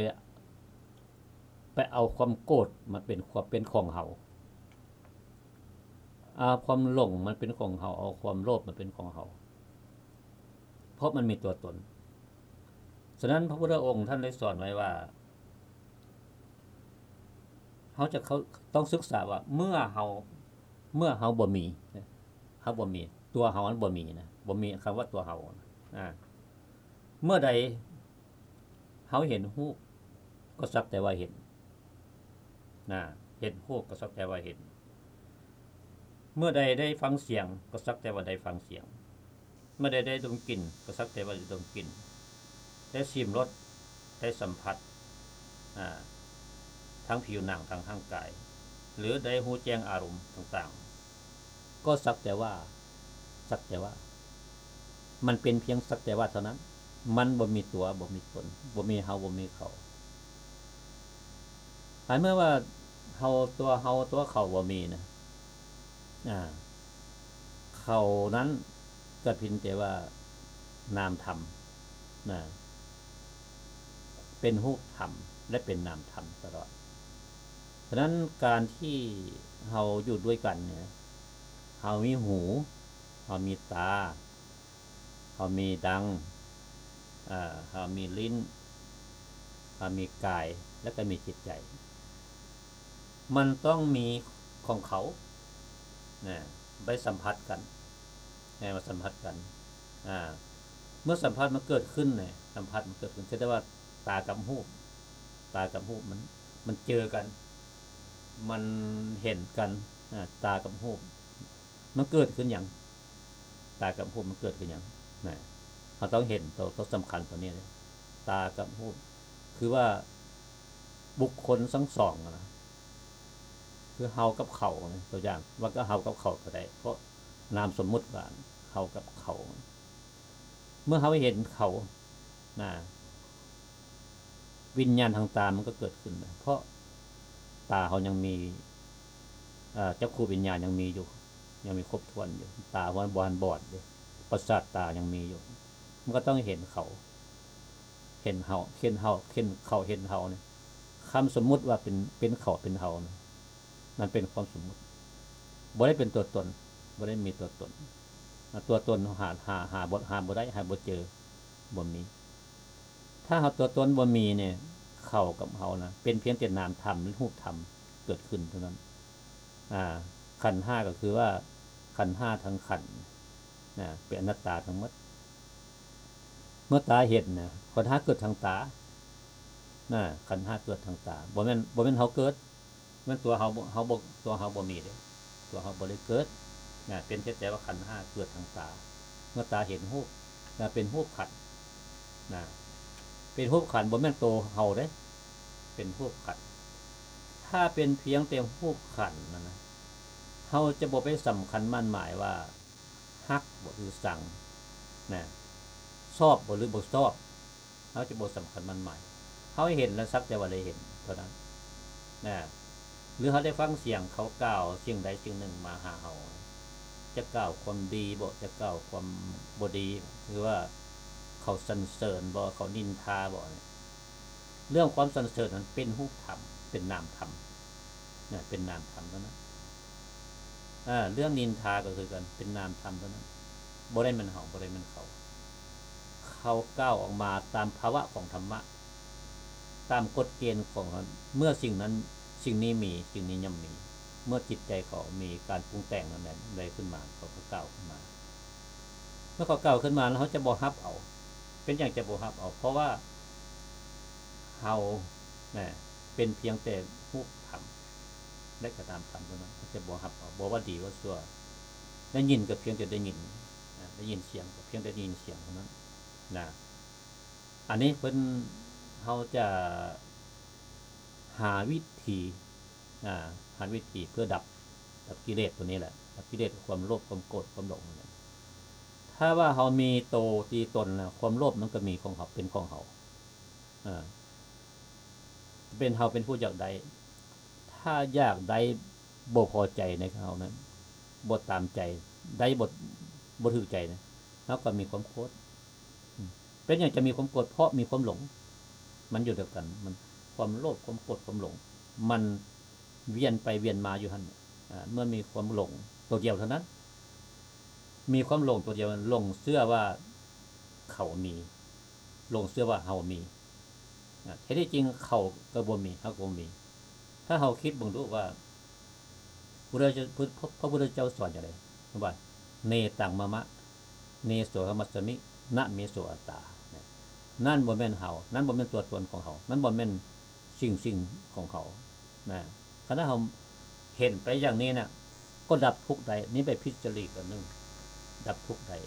ໄປເອົາຄວາມໂກດມາເປັນ ເປັນຂອງເຮົາ ເອົາຄວາມຫຼົງມາເປັນຂອງເຮົາ ເອົາຄວາມໂລບມາເປັນຂອງເຮົາ ເພາະມັນມີຕົວຕົນ. ສະນັ້ນ ພະພຸດທະອົງທ່ານໄດ້ສອນໄວ້ວ່າ ເຮົາຈະເຂົ້າ ຕ້ອງສຶກສາວ່າ ເມື່ອເຮົາ ເມື່ອເຮົາບໍ່ມີ ເຮົາບໍ່ມີ ຕົວເຮົາມັນບໍ່ມີນະ ບໍ່ມີຄຳວ່າຕົວເຮົານະ ອາ ເມື່ອໃດ ເຮົາເຫັນຮູບກໍສັກແຕ່ວ່າເຫັນນະ ເຫັນຮູບກໍສັກແຕ່ວ່າເຫັນ. ເມື່ອໃດໄດ້ຟັງສຽງກໍສັກແຕ່ວ່າໄດ້ຟັງສຽງ. ເມື່ອໃດໄດ້ດົມກິ່ນກໍສັກແຕ່ວ່າໄດ້ດົມກິ່ນ ໄດ້ຊິມລົດ ໄດ້ສຳຜັດ ອາ ທາງຜິວໜັງ ທາງຮ່າງກາຍ ຫຼື ໄດ້ຮູ້ແຈ້ງອາລົມຕ່າງໆ ກໍສັກແຕ່ວ່າ ສັກແຕ່ວ່າ ມັນເປັນພຽງສັກແຕ່ວ່າເທົ່ານັ້ນ ມັນບໍ່ມີຕົວ ບໍ່ມີຕົນ ບໍ່ມີເຮົາ ບໍ່ມີເຂົາ. ໃນເມື່ອວ່າເຮົາ ຕົວເຮົາ ຕົວເຂົາບໍ່ມີນະ ອາ ເຂົານັ້ນກໍເປັນແຕ່ວ່ານາມທຳນະ ເປັນຮູບທຳ ແລະ ເປັນນາມທຳຕະຫຼອດ. ສະນັ້ນ ການທີ່ເຮົາຢູ່ດ້ວຍກັນນີ້ ເຮົາມີຫູ ເຮົາມີຕາ ເຮົາມີດັງ ເຮົາມີລີ້ນ ເຮົາມີກາຍ ແລ້ວກໍມີຈິດໃຈ ມັນຕ້ອງມີຂອງເຂົານະ ໄປສຳຜັດກັນ ໃຫ້ມາສຳຜັດກັນ ອາ ເມື່ອສຳຜັດມັນເກີດຂຶ້ນນະ ສຳຜັດມັນເກີດຂຶ້ນ ຄືແຕ່ວ່າຕາກັບຮູບ ຕາກັບຮູບມັນ ມັນເຈີກັນ ມັນເຫັນກັນ ອາ ຕາກັບຮູບ ມັນເກີດຂຶ້ນຫຍັງ? ຕາກັບຮູບມັນເກີດຂຶ້ນຫຍັງນະ? ເຮົາຕ້ອງເຫັນໂຕ ໂຕສຳຄັນໂຕນີ້ເດ້ ຕາກັບຮູບ ຄືວ່າບຸກຄົນທັງສອງນະ ຄືເຮົາກັບເຂົານະ ຕົວຢ່າງວ່າກໍເຮົາກັບເຂົາກໍໄດ້ ເພາະນາມສົມມຸດວ່າເຮົາກັບເຂົາ. ເມື່ອເຮົາເຫັນເຂົານະ ວິນຍານທາງຕາມັນກໍເກີດຂຶ້ນນະ ເພາະຕາເຮົາຍັງມີ ເອີ ຈັກຂຸວິນຍານຍັງມີຢູ່ ຍັງມີຄົບຖ້ວນຢູ່ ຕາເຮົາບໍ່ທັນບອດເດ້ ປະສາດຕາຍັງມີຢູ່ ມັນກໍຕ້ອງເຫັນເຂົາ ເຫັນເຮົາ ເຫັນເຮົາ ເຫັນເຂົາ ເຫັນເຮົານີ້ ເ ຄຳສົມມຸດວ່າເປັນ ເປັນເຂົາເປັນເຮົານະ ນັ້ນເປັນຄວາມສົມມຸດ ບໍ່ໄດ້ເປັນຕົວຕົນ ບໍ່ໄດ້ມີຕົວຕົນ. ຕົວຕົນເຮົາຫາ ຫາ ຫາບໍ່ ຫາບໍ່ໄດ້ ຫາບໍ່ເຈີ ບໍ່ມີ. ຖ້າເຮົາຕົວຕົນບໍ່ມີນີ້ ເຂົາກັບເຮົານະ ເປັນພຽງແຕ່ນາມທຳ ຫຼື ຮູບທຳເກີດຂຶ້ນເທົ່ານັ້ນ. ອາ ຂັນຫ້າກໍຄືວ່າ ຂັນຫ້າທັງຂັນນະ ເປັນອະນັດຕາທັງໝົດ. ເມື່ອຕາເຫັນນະ ຂັນຫ້າເກີດທາງຕານະ ຂັນຫ້າເກີດທາງຕາ ບໍ່ແມ່ນ ບໍ່ແມ່ນເຮົາເກີດ ແມ່ນຕົວເຮົາບໍ່ ເຮົາບໍ່ ຕົວເຮົາບໍ່ມີເດ້ ຕົວເຮົາບໍ່ໄດ້ເກີດນະ ເປັນແຕ່ວ່າຂັນຫ້າເກີດທາງຕາ ເມື່ອຕາເຫັນຮູບນະ ເປັນຮູບຂັນນະ ເປັນຮູບຂັນ ບໍ່ແມ່ນໂຕເຮົາເດ້ ເປັນຮູບຂັນ. ຖ້າເປັນພຽງແຕ່ຮູບຂັນນັ້ນນະ ເຮົາຈະບໍ່ໄປສຳຄັນໝັ້ນໝາຍວ່າ ຮັກບໍ່ ຫຼື ຊັງນະ ຊອບບໍ່ ຫຼື ບໍ່ຊອບ ເຮົາຈະບໍ່ສຳຄັນໝັ້ນໝາຍ. ເຮົາເຫັນລະສັກແຕ່ວ່າໄດ້ເຫັນເທົ່ານັ້ນນະ ຫຼື ເຮົາໄດ້ຟັງສຽງເຂົາກ່າວສິ່ງໃດສິ່ງໜຶ່ງມາຫາເຮົາ ຈະກ່າວຄວາມດີບໍ ຈະກ່າວຄວາມບໍ່ດີ ຫຼືວ່າເຂົາສັນເສີນບໍ ເຂົານິນທາບໍ ເລື່ອງຄວາມສັນເສີນນັ້ນເປັນຮູບທຳ ເປັນນາມທຳນະ ເປັນນາມທຳເທົ່ານັ້ນ. ເອີ ເລື່ອງນິນທາກໍຄືກັນ ເປັນນາມທຳເທົ່ານັ້ນ ບໍ່ໄດ້ແມ່ນເຮົາ ບໍ່ໄດ້ແມ່ນເຂົາ. ເຂົາກ່າວອອກມາຕາມພາວະຂອງທຳມະ ຕາມກົດເກນຂອງ ເມື່ອສິ່ງນັ້ນ ສິ່ງນີ້ມີ ສິ່ງນີ້ຍ່ອມມີ ເມື່ອຈິດໃຈເຂົາມີການປຸງແຕ່ງນັ້ນໃດຂຶ້ນມາ ເຂົາກໍກ່າວຂຶ້ນມາ. ເມື່ອເຂົາກ່າວຂຶ້ນມາແລ້ວ ເຮົາຈະບໍ່ຮັບເອົາ. ເປັນຫຍັງຈະບໍ່ຮັບເອົາ? ເພາະວ່າເຮົານະ ເປັນພຽງແຕ່ຮູບທຳ ແລະ ກະນາມທຳເທົ່ານັ້ນ ເຮົາຈະບໍ່ຮັບເອົາ ບໍ່ວ່າດີວ່າຊົ່ວ. ໄດ້ຍິນກໍພຽງແຕ່ໄດ້ຍິນນະ ໄດ້ຍິນສຽງກໍພຽງແຕ່ໄດ້ຍິນສຽງເທົ່ານັ້ນນະ. ອັນນີ້ເພິ່ນ ເຮົາຈະຫາວິທີ ອາ ຫາວິທີເພື່ອດັບ ດັບກິເລດຕົວນີ້ແຫຼະ ດັບກິເລດຄວາມໂລບ ຄວາມໂກດ ຄວາມຫຼົງນັ້ນແຫຼະ. ຖ້າວ່າເຮົາມີໂຕ ມີຕົນແລ້ວ ຄວາມໂລບມັນກໍມີຂອງເຮົາ ເປັນຂອງເຮົາ ອາ ເປັນເຮົາເປັນຜູ້ຢາກໄດ້. ຖ້າຢາກໄດ້ ບໍ່ພໍໃຈໃນເຮົານັ້ນ ບໍ່ຕາມໃຈ ໄດ້ບໍ່ ບໍ່ຖືກໃຈນະ ເຮົາກໍມີຄວາມໂກດ. ເປັນຫຍັງຈະມີຄວາມໂກດ? ເພາະມີຄວາມຫຼົງ ມັນຢູ່ດຽວກັນ ມັນ ຄວາມໂລບ ຄວາມໂກດ ຄວາມຫຼົງ ມັນວຽນໄປວຽນມາຢູ່ຫັ້ນ. ອາ ເມື່ອມີຄວາມຫຼົງຕົວດຽວເທົ່ານັ້ນ ມີຄວາມຫຼົງຕົວດຽວ ຫຼົງເຊື່ອວ່າເຂົາມີ ຫຼົງເຊື່ອວ່າເຮົາມີ ອາ ແທ້ທີ່ຈິງເຂົາກໍບໍ່ມີ ເຮົາກໍບໍ່ມີ. ຖ້າເຮົາຄິດເບິ່ງດູວ່າ ພະພຸດທະເຈົ້າ ພະພຸດທະເຈົ້າສອນຈັ່ງໃດ? ວ່າ ເນຕັງມະມະ ເນໂສອະຫະມັດສະມິ ນະເມໂສອັດຕາ. ນັ້ນບໍ່ແມ່ນເຮົາ ນັ້ນບໍ່ແມ່ນຕົວຕົນຂອງເຮົາ ນັ້ນບໍ່ແມ່ນສິ່ງ ສິ່ງຂອງເຮົານະ. ຄັນເຮົາເຫັນໄປຢ່າງນີ້ນະ ກໍດັບທຸກໄດ້. ນີ້ໄປຜິດຈະລິດອັນໜຶ່ງ ດັບທຸກໄດ້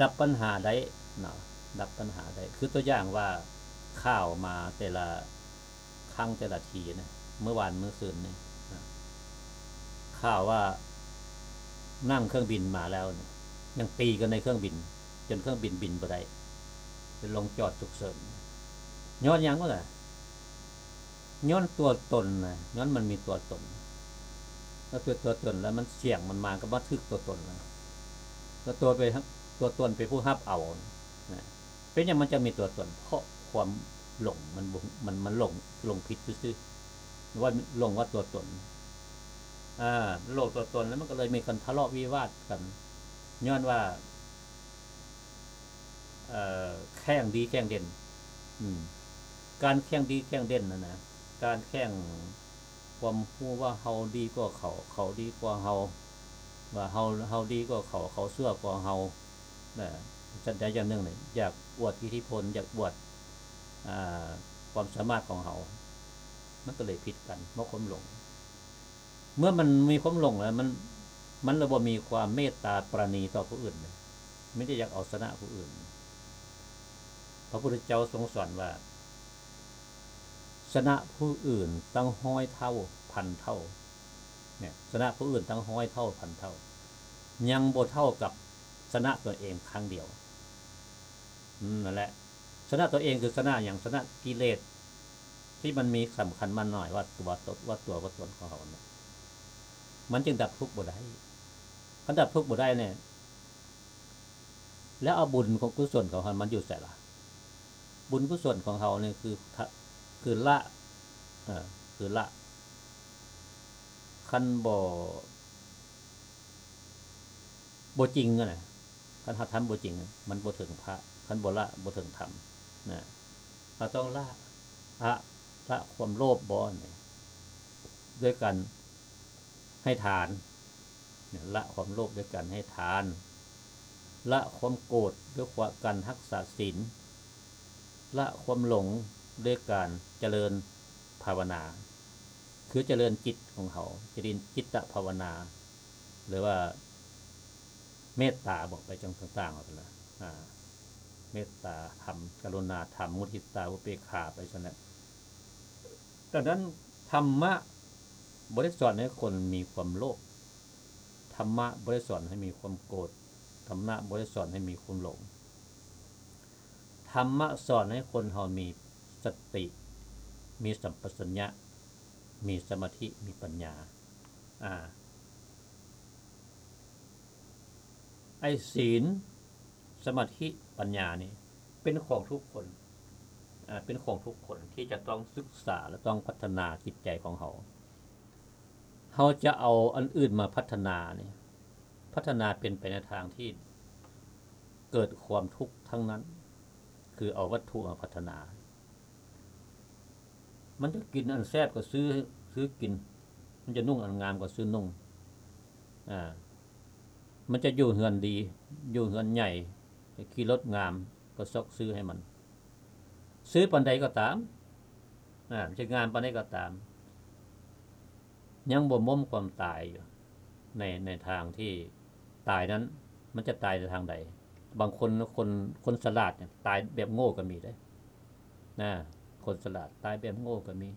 ດັບບັນຫາໄດ້ນະ ດັບບັນຫາໄດ້. ຄືຕົວຢ່າງວ່າ ຂ່າວມາແຕ່ລະ ຄັ້ງແຕ່ລະທີນະ ມື້ວານມື້ຊືນນີ້ນະ ຂ່າວວ່ານັ່ງເຄື່ອງບິນມາແລ້ວນີ້ ຍັງຕີກັນໃນເຄື່ອງບິນ ຈົນເຄື່ອງບິນບິນບໍ່ໄດ້ ຈົນລົງຈອດສຸກເສີນ. ຍ້ອນຫຍັງວະລະ? ຍ້ອນຕົວຕົນນະ ຍ້ອນມັນມີຕົວຕົນ. ຖ້າຕົວ ຕົວຕົນແລ້ວມັນ ສຽງມັນມາກໍມາຖືກຕົວຕົນນະ ແລ້ວຕົວໄປ ຕົວຕົນເປັນຜູ້ຮັບເອົານະ. ເປັນຫຍັງມັນຈະມີຕົວຕົນ? ເພາະຄວາມຫຼົງ ມັນບໍ່ ມັນ ມັນຫຼົງ ຫຼົງຜິດຊື່ໆ ວ່າຫຼົງວ່າຕົວຕົນ. ອາ ຫຼົງຕົວຕົນ ແລ້ວມັນກໍເລີຍມີການທະເລາະວິວາດກັນ ຍ້ອນວ່າ ເອີ ແຂ່ງດີແຂ່ງເດັ່ນ. ອືມ ການແຂ່ງດີແຂ່ງເດັ່ນນັ້ນນະ ການແຂ່ງ ຄວາມຮູ້ວ່າເຮົາດີກວ່າເຂົາ ເຂົາດີກວ່າເຮົາ ວ່າເຮົາ ເຮົາດີກວ່າເຂົາ ເຂົາຊົ່ວກວ່າເຮົານະ ສັນໃດຢ່າງໜຶ່ງນີ້ ຢາກອວດອິດທິພົນ ຢາກອວດ ອາ ຄວາມສາມາດຂອງເຮົາ ມັນກໍເລີຍຜິດກັນ ເພາະຄວາມຫຼົງ. ເມື່ອມັນມີຄວາມຫຼົງແລ້ວ ມັນ ມັນລະບໍ່ມີຄວາມເມດຕາປານີຕໍ່ຜູ້ອື່ນເລີຍ ມີແຕ່ຢາກເອົາຊະນະຜູ້ອື່ນ. ພະພຸດທະເຈົ້າຊົງສອນວ່າ ຊະນະຜູ້ອື່ນຕັ້ງຮ້ອຍເທົ່າພັນເທົ່າ ເນຍ ຊະນະຜູ້ອື່ນຕັ້ງຮ້ອຍເທົ່າພັນເທົ່າ ຍັງບໍ່ເທົ່າກັບຊະນະຕົນເອງຄັ້ງດຽວ. ອືມ ນັ້ນແຫຼະ ຊະນະຕົນເອງຄືຊະນະຫຍັງ? ຊະນະກິເລດທີ່ມັນມີສຳຄັນໝັ້ນໝາຍວ່າຕົວ ຕົວ ວ່າຕົວ ວ່າຕົນຂອງເຮົານັ້ນ ມັນຈຶ່ງດັບທຸກບໍ່ໄດ້. ຄັນດັບທຸກບໍ່ໄດ້ນີ້ ແລ້ວເອົາບຸນຂອງກຸສົນຂອງເຮົາມັນຢູ່ໃສລະ? ບຸນກຸສົນຂອງເຮົານີ້ຄື ທະ ຄືລະ ເອີ ຄືລະ ຄັນບໍ່ ບໍ່ຈິງຫັ້ນນະ ຄັນເຮົາທຳບໍ່ຈິງ ມັນບໍ່ເຖິງພະ, ຄັນບໍ່ລະ ບໍ່ເຖິງທຳນະ. ເຮົາຕ້ອງລະ ອະ ລະຄວາມໂລບບໍ່ນີ້ ດ້ວຍການໃຫ້ທານ. ລະຄວາມໂລບດ້ວຍການໃຫ້ທານ, ລະຄວາມໂກດດ້ວຍການຮັກສາສິນ, ລະຄວາມຫຼົງດ້ວຍການຈະເລີນພາວະນາ ຄືຈະເລີນຈິດຂອງເຮົາ, ຈະເລີນຈິດຕະພາວະນາ ຫຼືວ່າເມດຕາ ບອກໄປຈັ່ງຕ່າງໆ ເອົາຊັ້ນລະ ອາ ເມດຕາທຳ, ກະລຸນາທຳ, ມຸທິຕາ, ອຸເບກຂາ ໄປຊັ້ນແຫຼະ. ດັ່ງນັ້ນ ທຳມະບໍ່ໄດ້ສອນໃຫ້ຄົນມີຄວາມໂລບ, ທຳມະບໍ່ໄດ້ສອນໃຫ້ມີຄວາມໂກດ, ທຳມະບໍ່ໄດ້ສອນໃຫ້ມີຄວາມຫຼົງ. ທຳມະສອນໃຫ້ຄົນເຮົາມີສະຕິ, ມີສຳປະສັນຍະ, ມີສະມາທິ, ມີປັນຍາ. ອາ ໄອ້ ສີນ, ສະມາທິ, ປັນຍານີ້ ເປັນຂອງທຸກຄົນ, ອາ ເປັນຂອງທຸກຄົນທີ່ຈະຕ້ອງສຶກສາ ແລະ ຕ້ອງພັດທະນາຈິດໃຈຂອງເຮົາ. ເຮົາຈະເອົາອັນອື່ນມາພັດທະນານີ້ ພັດທະນາເປັນໄປໃນທາງທີ່ເກີດຄວາມທຸກທັງນັ້ນ, ຄືເອົາວັດຖຸມາພັດທະນາ. ມັນຈະກິນອັນແຊບກໍຊື້ ຊື້ກິນ, ມັນຈະນຸ່ງອັນງາມກໍຊື້ນຸ່ງ, ອາ ມັນຈະຢູ່ເຮືອນດີ ຢູ່ເຮືອນໃຫຍ່ ຂີ່ລົດງາມ ກໍຊອກຊື້ໃຫ້ມັນ. ຊື້ປານໃດກໍຕາມ, ອາ ມັນຈະງາມປານໃດກໍຕາມ, ຍັງບໍ່ໝົ້ມຄວາມຕາຍຢູ່ ໃນ ໃນທາງທີ່ຕາຍນັ້ນ ມັນຈະຕາຍໃນທາງໃດ? ບາງຄົນ ຄົນ ຄົນສະຫຼາດນີ້ຕາຍແບບໂງ່ກໍມີເດ້ ນະ, ຄົນສະຫຼາດຕາຍແບບໂງ່ກໍມີ.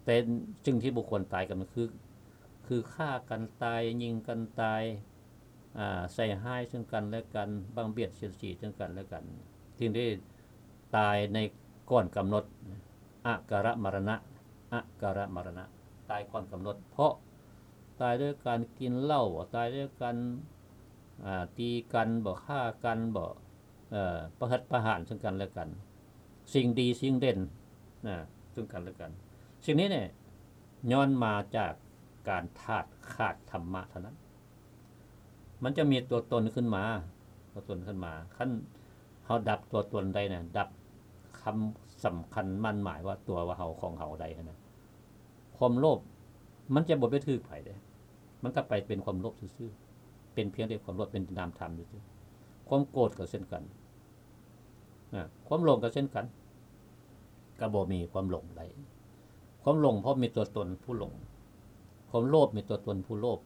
ແຕ່ສິ່ງທີ່ບໍ່ຄວນຕາຍກັນຄື ຄືຂ້າກັນຕາຍ, ຍິງກັນຕາຍ, ອາ ໃສ່ຮ້າຍເຊິ່ງກັນແລະກັນ, ບັງບຽດສຽດສີເຊິ່ງກັນແລະກັນ. ສິ່ງທີ່ຕາຍໃນກ່ອນກຳນົດ ອາກາລະມະລະນະ, ອາກາລະມະລະນະ, ຕາຍກ່ອນກຳນົດ ເພາະຕາຍດ້ວຍການກິນເຫຼົ້າ, ຕາຍດ້ວຍການ ອາ ຕີກັນບໍ, ຂ້າກັນບໍ, ເອີ ປະຫັດປະຫານເຊິ່ງກັນແລະກັນ, ສິ່ງດີສິ່ງເດັ່ນ ນະ ເຊິ່ງກັນແລະກັນ. ສິ່ງນີ້ນີ້ຍ້ອນມາຈາກການຂາດ ຂາດທຳມະເທົ່ານັ້ນ. ມັນຈະມີຕົວຕົນຂຶ້ນມາ, ຕົວຕົນຂຶ້ນມາ. ຄັນເຮົາດັບຕົວຕົນໄດ້ນະ, ດັບຄຳສຳຄັນໝັ້ນໝາຍວ່າຕົວວ່າເຮົາ ຂອງເຮົາໄດ້ຫັ້ນນະ, ຄວາມໂລບມັນຈະບໍ່ໄປຖືກໃຜເດ້, ມັນກໍໄປເປັນຄວາມໂລບຊື່ໆ, ເປັນພຽງແຕ່ຄວາມໂລບ, ເປັນນາມທຳຊື່ໆ. ຄວາມໂກດກໍເຊັ່ນກັນ, ນະ, ຄວາມຫຼົງກໍເຊັ່ນກັນ, ກໍບໍ່ມີຄວາມຫຼົງໄດ້. ຄວາມຫຼົງເພາະມີຕົວຕົນຜູ້ຫຼົງ, ຄວາມໂລບມີຕົວຕົນຜູ້ໂລບ,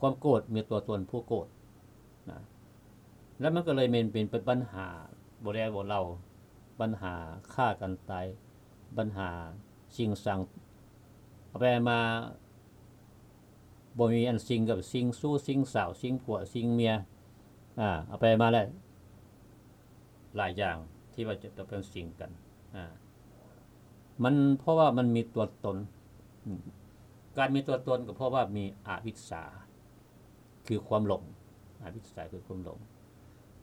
ຄວາມໂກດມີຕົວຕົນຜູ້ໂກດ, ນະ. ແລ້ວມັນກໍເລີຍເປັນ ເປັນ ເປັນບັນຫາບໍ່ແລບໍ່ເລົ່າ, ບັນຫາຂ້າກັນຕາຍ, ບັນຫາຊິງສັງ, ເອົາໄປມາບໍ່ມີອັນສິງກັບສິງ, ຊູ້ສິງສາວ, ສິງຜົວ, ສິງເມຍ, ອາ, ເອົາໄປມາແລ້ວ ຫຼາຍຢ່າງທີ່ວ່າຈະຕ້ອງເປັນສິງກັນ, ອາ, ມັນ ເພາະວ່າມັນມີຕົວຕົນ, ອາ, ການມີຕົວຕົນກໍເພາະວ່າມີອະວິດຊາ ຄືຄວາມຫຼົງ, ອະວິດຊາຄືຄວາມຫຼົງ.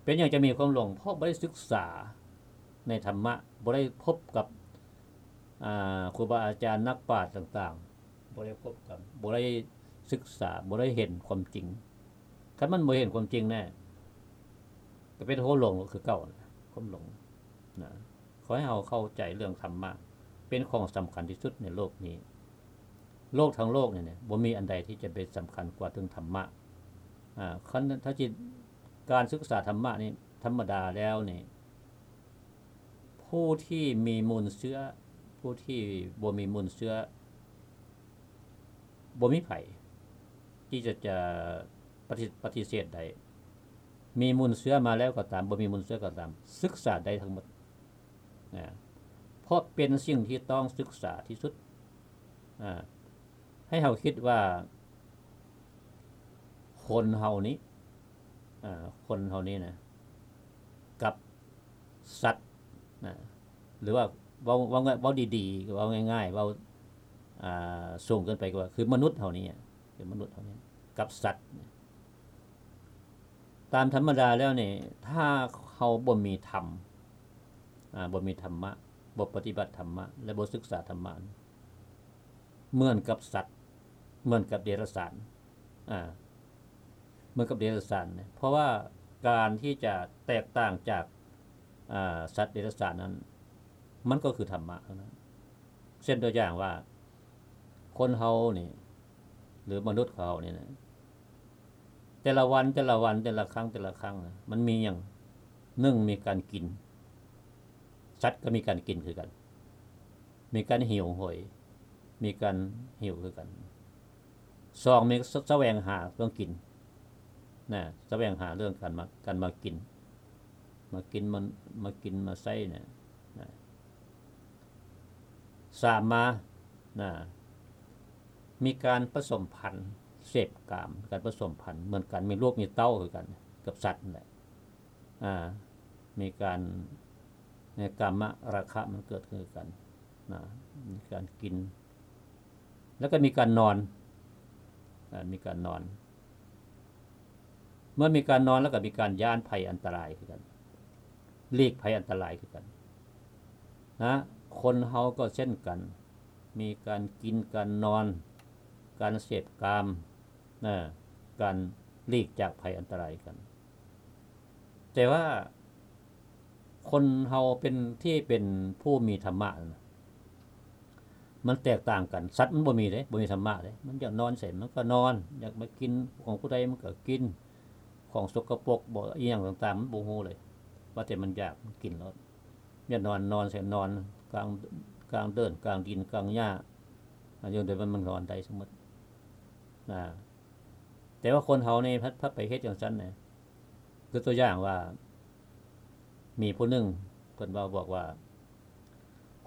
ເປັນຫຍັງຈະມີຄວາມຫຼົງ? ເພາະບໍ່ໄດ້ສຶກສາໃນທຳມະ, ບໍ່ໄດ້ພົບກັບ, ອາ, ຄູບາອາຈານ, ນັກປາດຕ່າງໆ, ບໍ່ໄດ້ພົບກັບ, ບໍ່ໄດ້ສຶກສາ, ບໍ່ໄດ້ເຫັນຄວາມຈິງ. ຄັນມັນບໍ່ເຫັນຄວາມຈິງແນ່, ກໍເປັນຄວາມຫຼົງຄືເກົ່າ, ຄວາມຫຼົງນະ. ຂໍໃຫ້ເຮົາເຂົ້າໃຈເລື່ອງທຳມະ ເປັນຂອງສຳຄັນທີ່ສຸດໃນໂລກນີ້. ໂລກທັງໂລກນີ້ນະ ບໍ່ມີອັນໃດທີ່ຈະເປັນສຳຄັນກວ່າເຖິງທຳມະ. ອາ, ຄັນຖ້າຈິດ ການສຶກສາທຳມະນີ້ ທຳມະດາແລ້ວນີ້ ຜູ້ທີ່ມີມູນເຊື້ອ, ຜູ້ທີ່ບໍ່ມີມູນເຊື້ອ, ບໍ່ມີໃຜທີ່ຈະ, ຈະປະຕິ, ປະຕິເສດໄດ້. ມີມູນເຊື້ອມາແລ້ວກໍຕາມ, ບໍ່ມີມູນເຊື້ອກໍຕາມ, ສຶກສາໄດ້ທັງໝົດ. ນະ, ເພາະເປັນສິ່ງທີ່ຕ້ອງສຶກສາທີ່ສຸດ. ອາ, ໃຫ້ເຮົາຄິດວ່າຄົນເຮົານີ້, ອາ, ຄົນເຮົານີ້ນະ, ກັບສັດນະ, ຫຼືວ່າເວົ້າ, ເວົ້າ, ເວົ້າດີໆ, ເວົ້າງ່າຍໆ, ເວົ້າ, ອາ, ສູງເກີນໄປກໍວ່າ ຄືມະນຸດເຮົານີ້, ຄືມະນຸດເຮົານີ້ ກັບສັດນະ. ຕາມທຳມະດາແລ້ວນີ້ ຖ້າເຮົາບໍ່ມີທຳ, ອາ, ບໍ່ມີທຳມະ, ບໍ່ປະຕິບັດທຳມະ ແລະ ບໍ່ສຶກສາທຳມະ, เหมือนกับสัตว์ เหมือนกับเดรัจฉาน อ่า เหมือนกับเดรัจฉานเนี่ย เพราะว่าการที่จะแตกต่างจาก อ่า สัตว์เดรัจฉานนั้น มันก็คือธรรมะเท่านั้น เช่นตัวอย่างว่า คนเฮานี่ หรือมนุษย์เฮานี่นะ แต่ละวัน แต่ละวัน แต่ละครั้ง แต่ละครั้งนะ มันมีหยัง หนึ่ง มีการกิน สัตว์ก็มีการกินคือกัน มีการหิวโหย มีการหิวคือกัน สอง มีส- แสวงหาเรื่องกินนะ แสวงหาเรื่องการมา การมากิน มากิน มา มากินมาใช้เนี่ยนะ สาม มานะ มีการผสมพันธุ์ เสพกาม การผสมพันธุ์ เหมือนกัน มีลูกมีเต้าคือกัน กับสัตว์นั่นแหละ อ่า มีการ ในกามราคะมันเกิดขึ้นคือกันนะ มีการกิน แล้วก็มีการนอน อ่า มีการนอน เมื่อมีการนอนแล้วก็มีการย้านภัยอันตรายคือกัน หลีกภัยอันตรายคือกันนะ คนเฮาก็เช่นกัน มีการกิน การนอน การเสพกามนะ การหลีกจากภัยอันตรายกัน แต่ว่าคนเฮาเป็น ที่เป็นผู้มีธรรมะนะ มันแตกต่างกัน สัตว์มันบ่มีเด้ บ่มีธรรมะเด้ มันอยากนอนใสมันก็นอน อยากมากินของผู้ใดมันก็กิน ของสกปรกบ่ อีหยังต่างๆ มันบ่ฮู้เลย ว่าแต่มันอยากมันกินโลด อยากนอนนอนใสนอน กลาง กลางเดิน กลางดิน กลางหญ้า อันนี้เดี๋ยวมันนอนได้สมมุติ นะ แต่ว่าคนเฮานี่พัด พัดไปเฮ็ดจั่งซั้นนะ คือตัวอย่างว่า มีผู้หนึ่งเพิ่นเว้าบอกว่า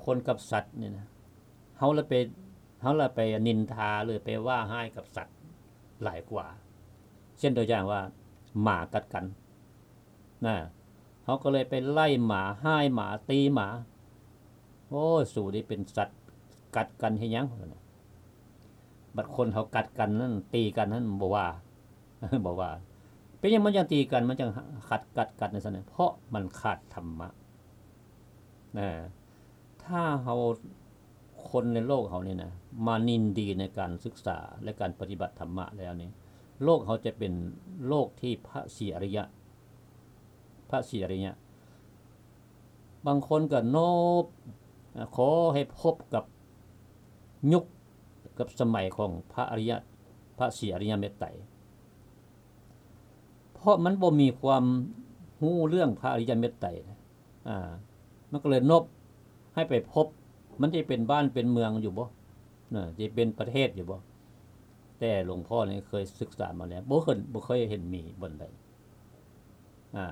คนกับสัตว์นี่นะ เฮาละไป เฮาละไปนินทาหรือไปว่าฮ้ายกับสัตว์หลายกว่า เช่นตัวอย่างว่า หมากัดกันนะ เฮาก็เลยไปไล่หมา ฮ้ายหมา ตีหมา โอ้ย สูนี่เป็นสัตว์ กัดกันเฮ็ดหยัง บัดคนเฮากัดกันนั่น ตีกันนั่นบ่ว่า บ่ว่า เป็นหยังมันจั่งตีกัน มันจั่งขัด กัดกันจั่งซั้นนะ เพราะมันขาดธรรมะ นะ ถ้าเฮา คนในโลกเฮานี่นะ มายินดีในการศึกษาและการปฏิบัติธรรมะแล้วนี่ โลกเฮาจะเป็นโลกที่พระศรีอริยะ พระศรีอริยะ บางคนก็โนบ ขอให้พบกับยุคกับสมัยของพระอริยะ พระศรีอริยเมตไตร เพราะมันบ่มีความรู้เรื่องพระอริยเมตไตร อ่า มันก็เลยโนบให้ไปพบ มันจะเป็นบ้านเป็นเมืองอยู่บ่ นะ จะเป็นประเทศอยู่บ่ แต่หลวงพ่อนี่เคยศึกษามาแล้ว บ่เคย บ่เคยเห็นมีบ่อนใด อ่า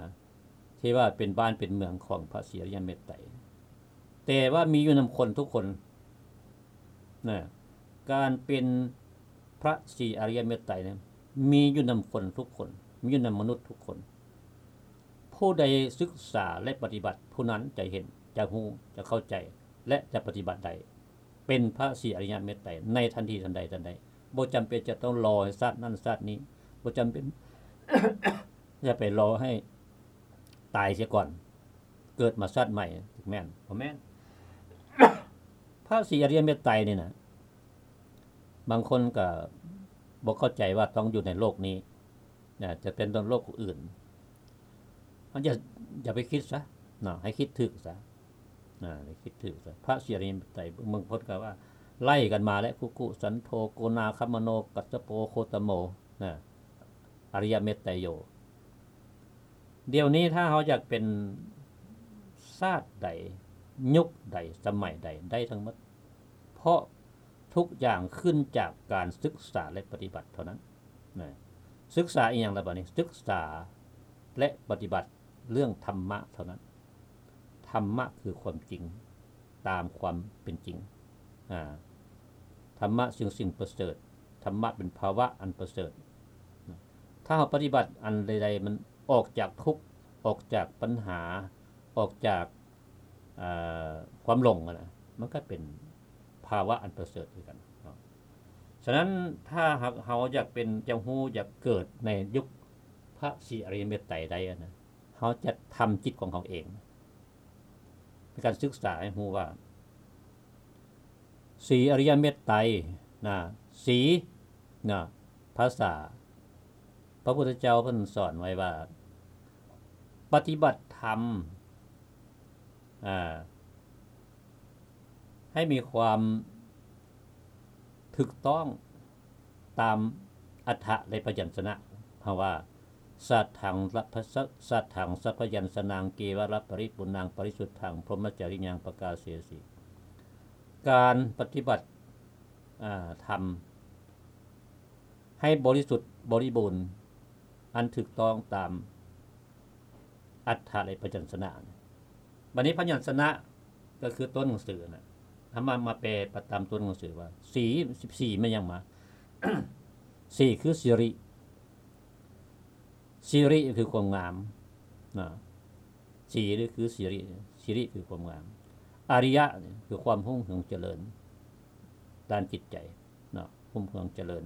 ที่ว่าเป็นบ้านเป็นเมืองของพระศรีอริยเมตไตร แต่ว่ามีอยู่นำคนทุกคน นะ การเป็นพระศรีอริยเมตไตรเนี่ย มีอยู่นำคนทุกคน มีอยู่นำมนุษย์ทุกคน ผู้ใดศึกษาและปฏิบัติ ผู้นั้นจะเห็น จะรู้ จะเข้าใจ และจะปฏิบัติได้ เป็นพระศรีอริยเมตไตรในทันทีทันใดทันใด บ่จำเป็นจะต้องรอให้ชาตินั้นชาตินี้ บ่จำเป็น อย่าไปรอให้ตายเสียก่อน เกิดมาชาติใหม่ แม่นบ่แม่น พระศรีอริยเมตไตรนี่นะ บางคนก็บ่เข้าใจว่าต้องอยู่ในโลกนี้นะ จะเป็นโลกอื่น มันอย่า อย่าไปคิดซะเนาะ ให้คิดถูกซะนะ ให้คิดถูกซะ พระศรีอริยเมตไตร บางคนก็ว่าไล่กันมาแล้ว คุกุ สันโธ โกนาคมโน กัสสโป โคตโม นะ อริยเมตไตรโย เดี๋ยวนี้ถ้าเฮาอยากเป็นชาติใด ยุคใด สมัยใด ได้ทั้งหมด เพราะทุกอย่างขึ้นจากการศึกษาและปฏิบัติเท่านั้นนะ ศึกษาอีหยังล่ะบัดนี้ ศึกษาและปฏิบัติเรื่องธรรมะเท่านั้น ธรรมะคือความจริง ตามความเป็นจริง อ่า ธรรมะซึ่งสิ่งประเสริฐ ธรรมะเป็นภาวะอันประเสริฐ ถ้าเราปฏิบัติอันใดๆ มันออกจากทุกข์ ออกจากปัญหา ออกจาก เอ่อ ความหลงอะนะ มันก็เป็นภาวะอันประเสริฐคือกันเนาะ ฉะนั้นถ้าหากเราอยากเป็น จะรู้ อยากเกิดในยุคพระศรีอริยเมตไตรได้อะนะ เราจะทำจิตของเราเอง เป็นการศึกษาให้รู้ว่า ສີອະລິຍະເມດໄຕນະ ສີນະ ພາສາ ພະພຸດທະເຈົ້າເພິ່ນສອນໄວ້ວ່າ ປະຕິບັດທຳ ອ່າ ໃຫ້ມີຄວາມຖືກຕ້ອງຕາມອັດຖະ ແລະ ພະຍັນຊະນະ ເພາະວ່າ ສັດຖັງ ສະ- ສັດຖັງ ສະພະຍັນຊະນັງ ເກວະລະປະລິປຸນນັງ ປະລິສຸດຖັງ ພົມມະຈາຣິຍັງ ປະກາເສສີ ການປະຕິບັດ ອ່າ ທຳໃຫ້ບໍລິສຸດບໍລິບູນ ອັນຖືກຕ້ອງຕາມອັດຖະ ແລະ ພະຍັນຊະນະ. ບັດນີ້ພະຍັນຊະນະກໍຄືຕົວໜັງສືນະ ເຮົາມາ ມາແປຕາມຕົວໜັງສືວ່າ ສີ ສີແມ່ນຫຍັງມາ? ສີຄືສິລິ. ສິລິຄືຄວາມງາມນະ ສີນີ້ຄືສິລິ ສິລິຄືຄວາມງາມ ອະລິຍະນີ້ຄືຄວາມຮຸ່ງເຮືອງຈະເລີນດ້ານຈິດໃຈເນາະ ຮຸ່ງເຮືອງຈະເລີນ.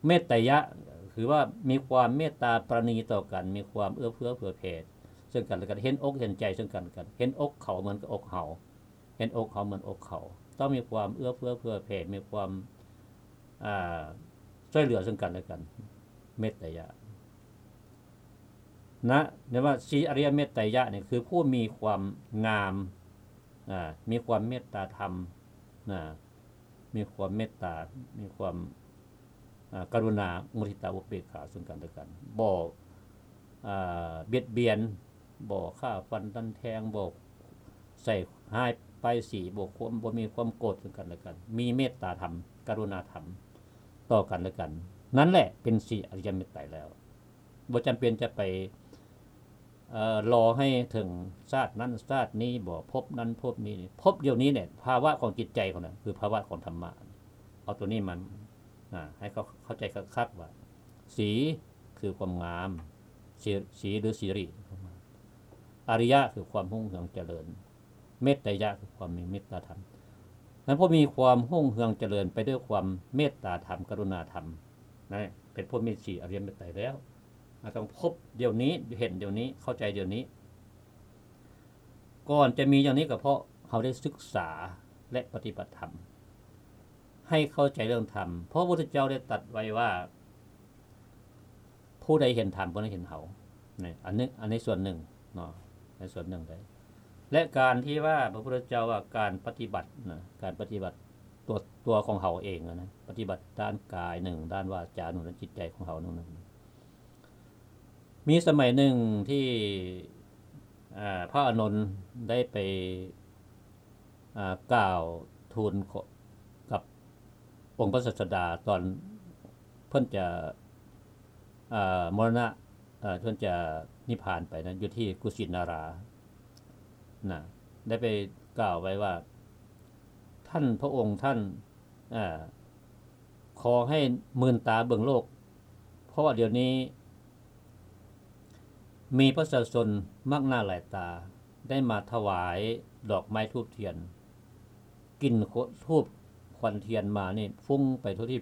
ເມດຕະຍະຄືວ່າມີຄວາມເມດຕາປາລະນີຕໍ່ກັນ ມີຄວາມເອື້ອເຟື້ອເຜື່ອແຜ່ເຊິ່ງກັນແລະກັນ ເຫັນອົກເຫັນໃຈເຊິ່ງກັນແລະກັນ ເຫັນອົກເຂົາເໝືອນກັບອົກເຮົາ ເຫັນອົກເຂົາເໝືອນອົກເຂົາ ຕ້ອງມີຄວາມເອື້ອເຟື້ອເຜື່ອແຜ່ ມີຄວາມ ອ່າ ຊ່ວຍເຫຼືອເຊິ່ງກັນແລະກັນ ເມດຕະຍະນະ. ເອີ້ນວ່າສີອະລິຍະເມດຕະຍະນີ້ຄືຜູ້ມີຄວາມງາມ ອ່າ ມີຄວາມເມດຕາທຳນະ ມີຄວາມເມດຕາ ມີຄວາມ ອ່າ ກະລຸນາ ມຸທິຕາ ອຸເບກຂາເຊິ່ງກັນແລະກັນ ບໍ່ ອ່າ ບຽດບຽນ ບໍ່ຂ້າຟັນດັນແທງ ບໍ່ໃສ່ຮ້າຍປ້າຍສີ ບໍ່ຄວາມ ບໍ່ມີຄວາມໂກດເຊິ່ງກັນແລະກັນ ມີເມດຕາທຳ ກະລຸນາທຳຕໍ່ກັນແລະກັນ ນັ້ນແຫຼະເປັນສີອະລິຍະເມດໄຕແລ້ວ. ບໍ່ຈຳເປັນຈະໄປ ເອີ ລໍໃຫ້ເຖິງຊາດນັ້ນຊາດນີ້ ບໍ່ພົບນັ້ນພົບນີ້ ພົບດຽວນີ້ແຫຼະ ພາວະຂອງຈິດໃຈຂອງນັ້ນ ຄືພາວະຂອງທຳມະ. ເອົາຕົວນີ້ມາ ອ່າ ໃຫ້ເຂົາເຂົ້າໃຈຄັກໆວ່າ ສີຄືຄວາມງາມ ສີ ສີຫຼືສິລິ ອະລິຍະຄືຄວາມຮຸ່ງເຮືອງຈະເລີນ ເມດຕະຍະຄືຄວາມມີເມດຕາທຳ. ນັ້ນຜູ້ມີຄວາມຮຸ່ງເຮືອງຈະເລີນໄປດ້ວຍຄວາມເມດຕາທຳ ກະລຸນາທຳ ນັ້ນເປັນຜູ້ມີສີອະລິຍະເມດໄຕແລ້ວ. ເຮົາຕ້ອງພົບດຽວນີ້ ເຫັນດຽວນີ້ ເຂົ້າໃຈດຽວນີ້. ກ່ອນຈະມີຢ່າງນີ້ກໍເພາະເຮົາໄດ້ສຶກສາ ແລະ ປະຕິບັດທຳ ໃຫ້ເຂົ້າໃຈເລື່ອງທຳ ເພາະພະພຸດທະເຈົ້າໄດ້ຕັດໄວ້ວ່າ ຜູ້ໃດເຫັນທຳ ຜູ້ນັ້ນເຫັນເຮົາ. ນີ້ ອັນນີ້ ອັນນີ້ສ່ວນໜຶ່ງເນາະ ໃນສ່ວນໜຶ່ງເດ້. ແລະ ການທີ່ວ່າພະພຸດທະເຈົ້າວ່າການປະຕິບັດນະ ການປະຕິບັດຕົວ ຕົວຂອງເຮົາເອງນະ ປະຕິບັດດ້ານກາຍໜຶ່ງ ດ້ານວາຈາໜຶ່ງ ດ້ານຈິດໃຈຂອງເຮົາໜຶ່ງ ມີສະໄໝໜຶ່ງທີ່ ອ່າ ພະອານົນໄດ້ໄປ ອ່າ ກ່າວທູນກັບອົງພະສາສະດາ ຕອນເພິ່ນຈະ ອ່າ ມໍລະນະ ເອີ ເພິ່ນຈະນິບພານໄປນັ້ນ ຢູ່ທີ່ກຸສິນາລານະ ໄດ້ໄປກ່າວໄວ້ວ່າ ທ່ານພະອົງທ່ານ ເອີ ຂໍໃຫ້ມື່ນຕາເບິ່ງໂລກ ເພາະວ່າດຽວນີ້ມີປະຊາຊົນມາກໜ້າຫຼາຍຕາ ໄດ້ມາຖວາຍດອກໄມ້ທູບທຽນ ກິ່ນທູບຄວັນທຽນມານີ້ຟຸ້ງໄປທົ່ວທີ່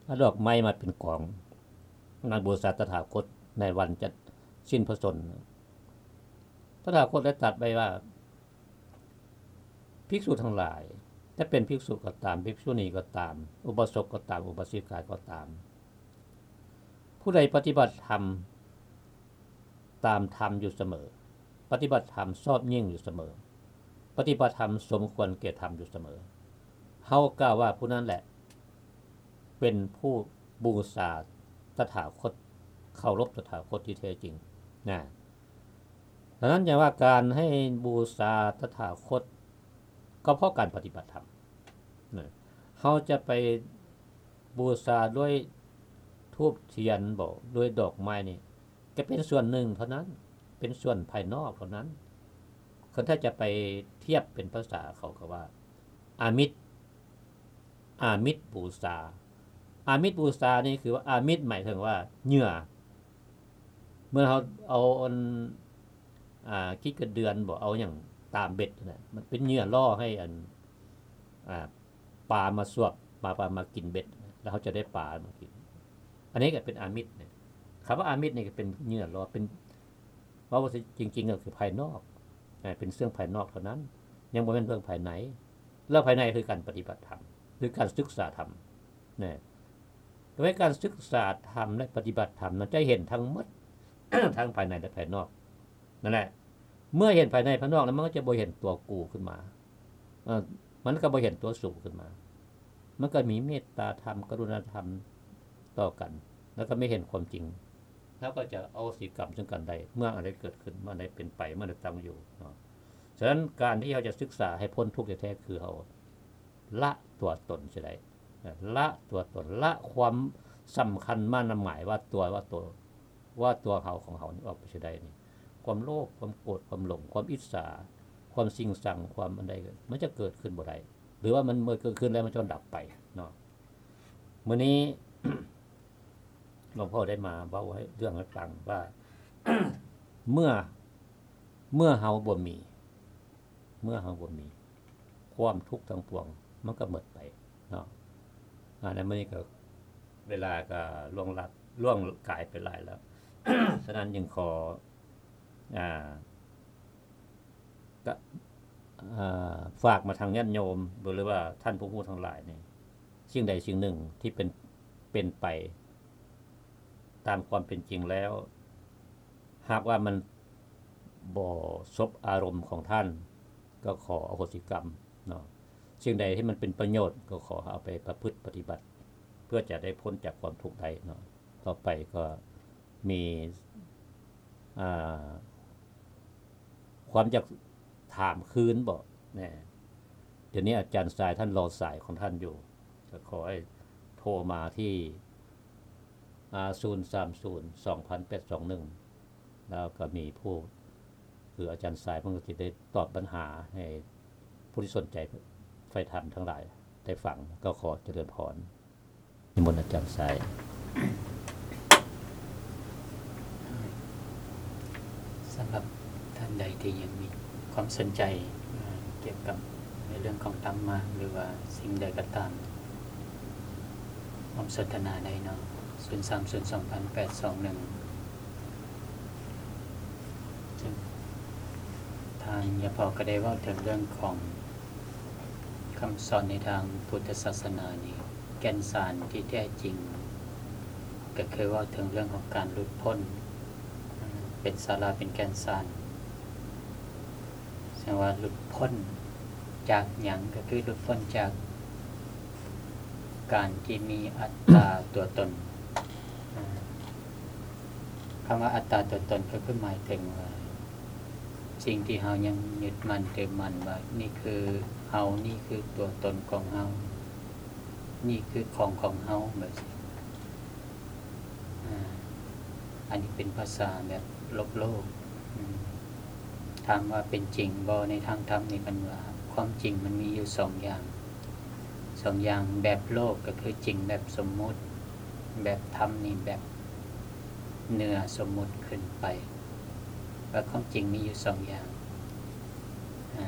ເອົາດອກໄມ້ມາເປັນກອງ ມາບູຊາຕະຖາຄົດໃນວັນຈັດສິ້ນພະຊົນ. ຕະຖາຄົດໄດ້ຕັດໄວ້ວ່າ ພິກສຸທັງຫຼາຍ ຈະເປັນພິກສຸກໍຕາມ ພິກສຸນີກໍຕາມ ອຸບາສົກກໍຕາມ ອຸບາສິກາກໍຕາມ ຜູ້ໃດປະຕິບັດທຳຕາມທຳຢູ່ສະເໝີ ປະຕິບັດທຳຊອບຍິ່ງຢູ່ສະເໝີ ປະຕິບັດທຳສົມຄວນແກ່ທຳຢູ່ສະເໝີ ເຮົາກ່າວວ່າຜູ້ນັ້ນແຫຼະເປັນຜູ້ບູຊາຕະຖາຄົດ ເຄົາລົບຕະຖາຄົດທີ່ແທ້ຈິງນະ. ສະນັ້ນ ຢ່າວ່າການໃຫ້ບູຊາຕະຖາຄົດ ກໍເພາະການປະຕິບັດທຳນະ ເຮົາຈະໄປບູຊາດ້ວຍທູບທຽນບໍ ດ້ວຍດອກໄມ້ນີ້ ກໍເປັນສ່ວນໜຶ່ງເທົ່ານັ້ນ ເປັນສ່ວນພາຍນອກເທົ່ານັ້ນ. ຄັນຖ້າຈະໄປທຽບເປັນພາສາເຂົາກໍວ່າ ອາມິດ ອາມິດບູຊາ ອາມິດບູຊານີ້ຄືວ່າ ອາມິດໝາຍເຖິງວ່າເຫຍື່ອ ເມື່ອເຮົາເອົາອັນ ອ່າ ຂີ້ກະເດືອນບໍ ເອົາຫຍັງຕາມເບັດຫັ້ນນະ ມັນເປັນເຫຍື່ອລ່ອໃຫ້ອັນ ອ່າ ປາມາສວບ ມາ ປາມາກິນເບັດ ແລ້ວເຮົາຈະໄດ້ປາມາກິນ. ອັນນີ້ກໍເປັນອາມິດນະ ຄຳວ່າອາມິດນີ້ກໍເປັນເຫຍື່ອລ່ອ ເປັນ ເວົ້າວ່າຈິງໆກໍຄືພາຍນອກ ເປັນເລື່ອງພາຍນອກເທົ່ານັ້ນ ຍັງບໍ່ແມ່ນເລື່ອງພາຍໃນ. ເລື່ອງພາຍໃນຄືການປະຕິບັດທຳ ຄືການສຶກສາທຳນະ. ໂດຍການສຶກສາທຳ ແລະ ປະຕິບັດທຳນັ້ນ ຈະເຫັນທັງໝົດ ທັງພາຍໃນ ແລະ ພາຍນອກ. ນັ້ນແຫຼະ ເມື່ອເຫັນພາຍໃນພາຍນອກແລ້ວ ມັນກໍຈະບໍ່ເຫັນຕົວກູຂຶ້ນມາ ເອີ ມັນກໍບໍ່ເຫັນຕົວສູງຂຶ້ນມາ. ມັນກໍມີເມດຕາທຳ ກະລຸນາທຳຕໍ່ກັນ ແລ້ວກໍມີເຫັນຄວາມຈິງ ເຮົາກໍຈະອະໂຫສິກຳເຊິ່ງກັນໄດ້ ເມື່ອອັນໃດເກີດຂຶ້ນ ເມື່ອອັນໃດເປັນໄປ ເມື່ອອັນໃດຕັ້ງຢູ່ເນາະ. ສະນັ້ນ ການທີ່ເຮົາຈະສຶກສາໃຫ້ພົ້ນທຸກແທ້ໆ ຄືເຮົາລະຕົວຕົນເສຍໄດ້ ລະຕົວຕົນ ລະຄວາມສຳຄັນໝາຍວ່າຕົວ ວ່າຕົວ ວ່າຕົວເຮົາຂອງເຮົານີ້ອອກໄປເສຍໄດ້ນີ້ ຄວາມໂລບ ຄວາມໂກດ ຄວາມຫຼົງ ຄວາມອິດສາ ຄວາມຊິງຊັງ ຄວາມອັນໃດ ມັນຈະເກີດຂຶ້ນບໍ່ໄດ້ ຫຼືວ່າມັນເມື່ອເກີດຂຶ້ນແລ້ວມັນຈະດັບໄປເນາະ. ມື້ນີ້ ຫຼວງພໍ່ໄດ້ມາເວົ້າໃຫ້ເລື່ອງໃຫ້ຟັງວ່າ ເມື່ອ ເມື່ອເຮົາບໍ່ມີ ເມື່ອເຮົາບໍ່ມີ ຄວາມທຸກທັງປວງມັນກໍໝົດໄປເນາະ. ອາ ໃນມື້ນີ້ກໍເວລາກໍລ່ວງລັດ ລ່ວງກາຍໄປຫຼາຍແລ້ວ ສະນັ້ນຈຶ່ງຂໍ ອາ ກະ ອາ ຝາກມາທາງຍາດໂຍມ ຫຼືວ່າທ່ານຜູ້ຮູ້ທັງຫຼາຍນີ້ ສິ່ງໃດສິ່ງໜຶ່ງທີ່ເປັນ ເປັນໄປຕາມຄວາມເປັນຈິງແລ້ວ ຫາກວ່າມັນບໍ່ສົບອາລົມຂອງທ່ານ ກໍຂໍອະໂຫສິກຳເນາະ. ສິ່ງໃດທີ່ມັນເປັນປະໂຫຍດ ກໍຂໍເອົາໄປປະພຶດປະຕິບັດ ເພື່ອຈະໄດ້ພົ້ນຈາກຄວາມທຸກໄດ້ເນາະ. ຕໍ່ໄປກໍມີ ອ່າ ຄວາມຢາກຖາມຄືນບໍ? ແນ່ ດຽວນີ້ອາຈານຊາຍທ່ານລໍສາຍຂອງທ່ານຢູ່ ກໍຂໍໃຫ້ໂທມາທີ່ ອາ ສູນສາມສູນ ສອງພັນແປດສອງໜຶ່ງ ແລ້ວກໍມີຜູ້ ຄືອາຈານຊາຍເພິ່ນກໍຊິໄດ້ຕອບບັນຫາໃຫ້ຜູ້ທີ່ສົນໃຈໃຝ່ທຳທັງຫຼາຍໄດ້ຟັງ. ກໍຂໍຈະເລີນພອນ. ນິມົນອາຈານຊາຍ. ສຳລັບທ່ານໃດທີ່ຍັງມີຄວາມສົນໃຈ ເອີ ກ່ຽວກັບໃນເລື່ອງຂອງທຳມະ ຫຼືວ່າສິ່ງໃດກໍຕາມ ຮ່ວມສົນທະນາໄດ້ເນາະ ສູນສາມສູນ ສອງພັນແປດສອງໜຶ່ງ. ເຊິ່ງທ່ານຍາພໍ່ກໍໄດ້ເວົ້າເຖິງເລື່ອງຂອງຄຳສອນໃນທາງພຸດທະສາສະໜານີ້ ແກ່ນສານທີ່ແທ້ຈິງ ກໍຄືເວົ້າເຖິງເລື່ອງຂອງການຫຼຸດພົ້ນ ເປັນສາລະ ເປັນແກ່ນສານ. ແສດງວ່າຫຼຸດພົ້ນຈາກຫຍັງ? ກໍຄືຫຼຸດພົ້ນຈາກການທີ່ມີອັດຕາຕົວຕົນ. ອາ ຄຳວ່າອັດຕາຕົວຕົນກໍຄືໝາຍເຖິງວ່າ ສິ່ງທີ່ເຮົາຍັງຍຶດໝັ້ນຖືໝັ້ນວ່າ ນີ້ຄືເຮົາ, ນີ້ຄືຕົວຕົນຂອງເຮົາ, ນີ້ຄືຂອງຂອງເຮົາ ແບບຊີ້. ອາ ອັນນີ້ເປັນພາສາແບບໂລກໆ. ອາ ຖາມວ່າເປັນຈິງບໍ່? ໃນທາງທຳນີ້ເພິ່ນວ່າ ຄວາມຈິງມັນມີຢູ່ສອງຢ່າງ, ສອງຢ່າງ. ແບບໂລກກໍຄືຈິງແບບສົມມຸດ, ແບບທຳນີ້ແບບເໜືອສົມມຸດຂຶ້ນໄປ. ວ່າຄວາມຈິງມີຢູ່ສອງຢ່າງ ອາ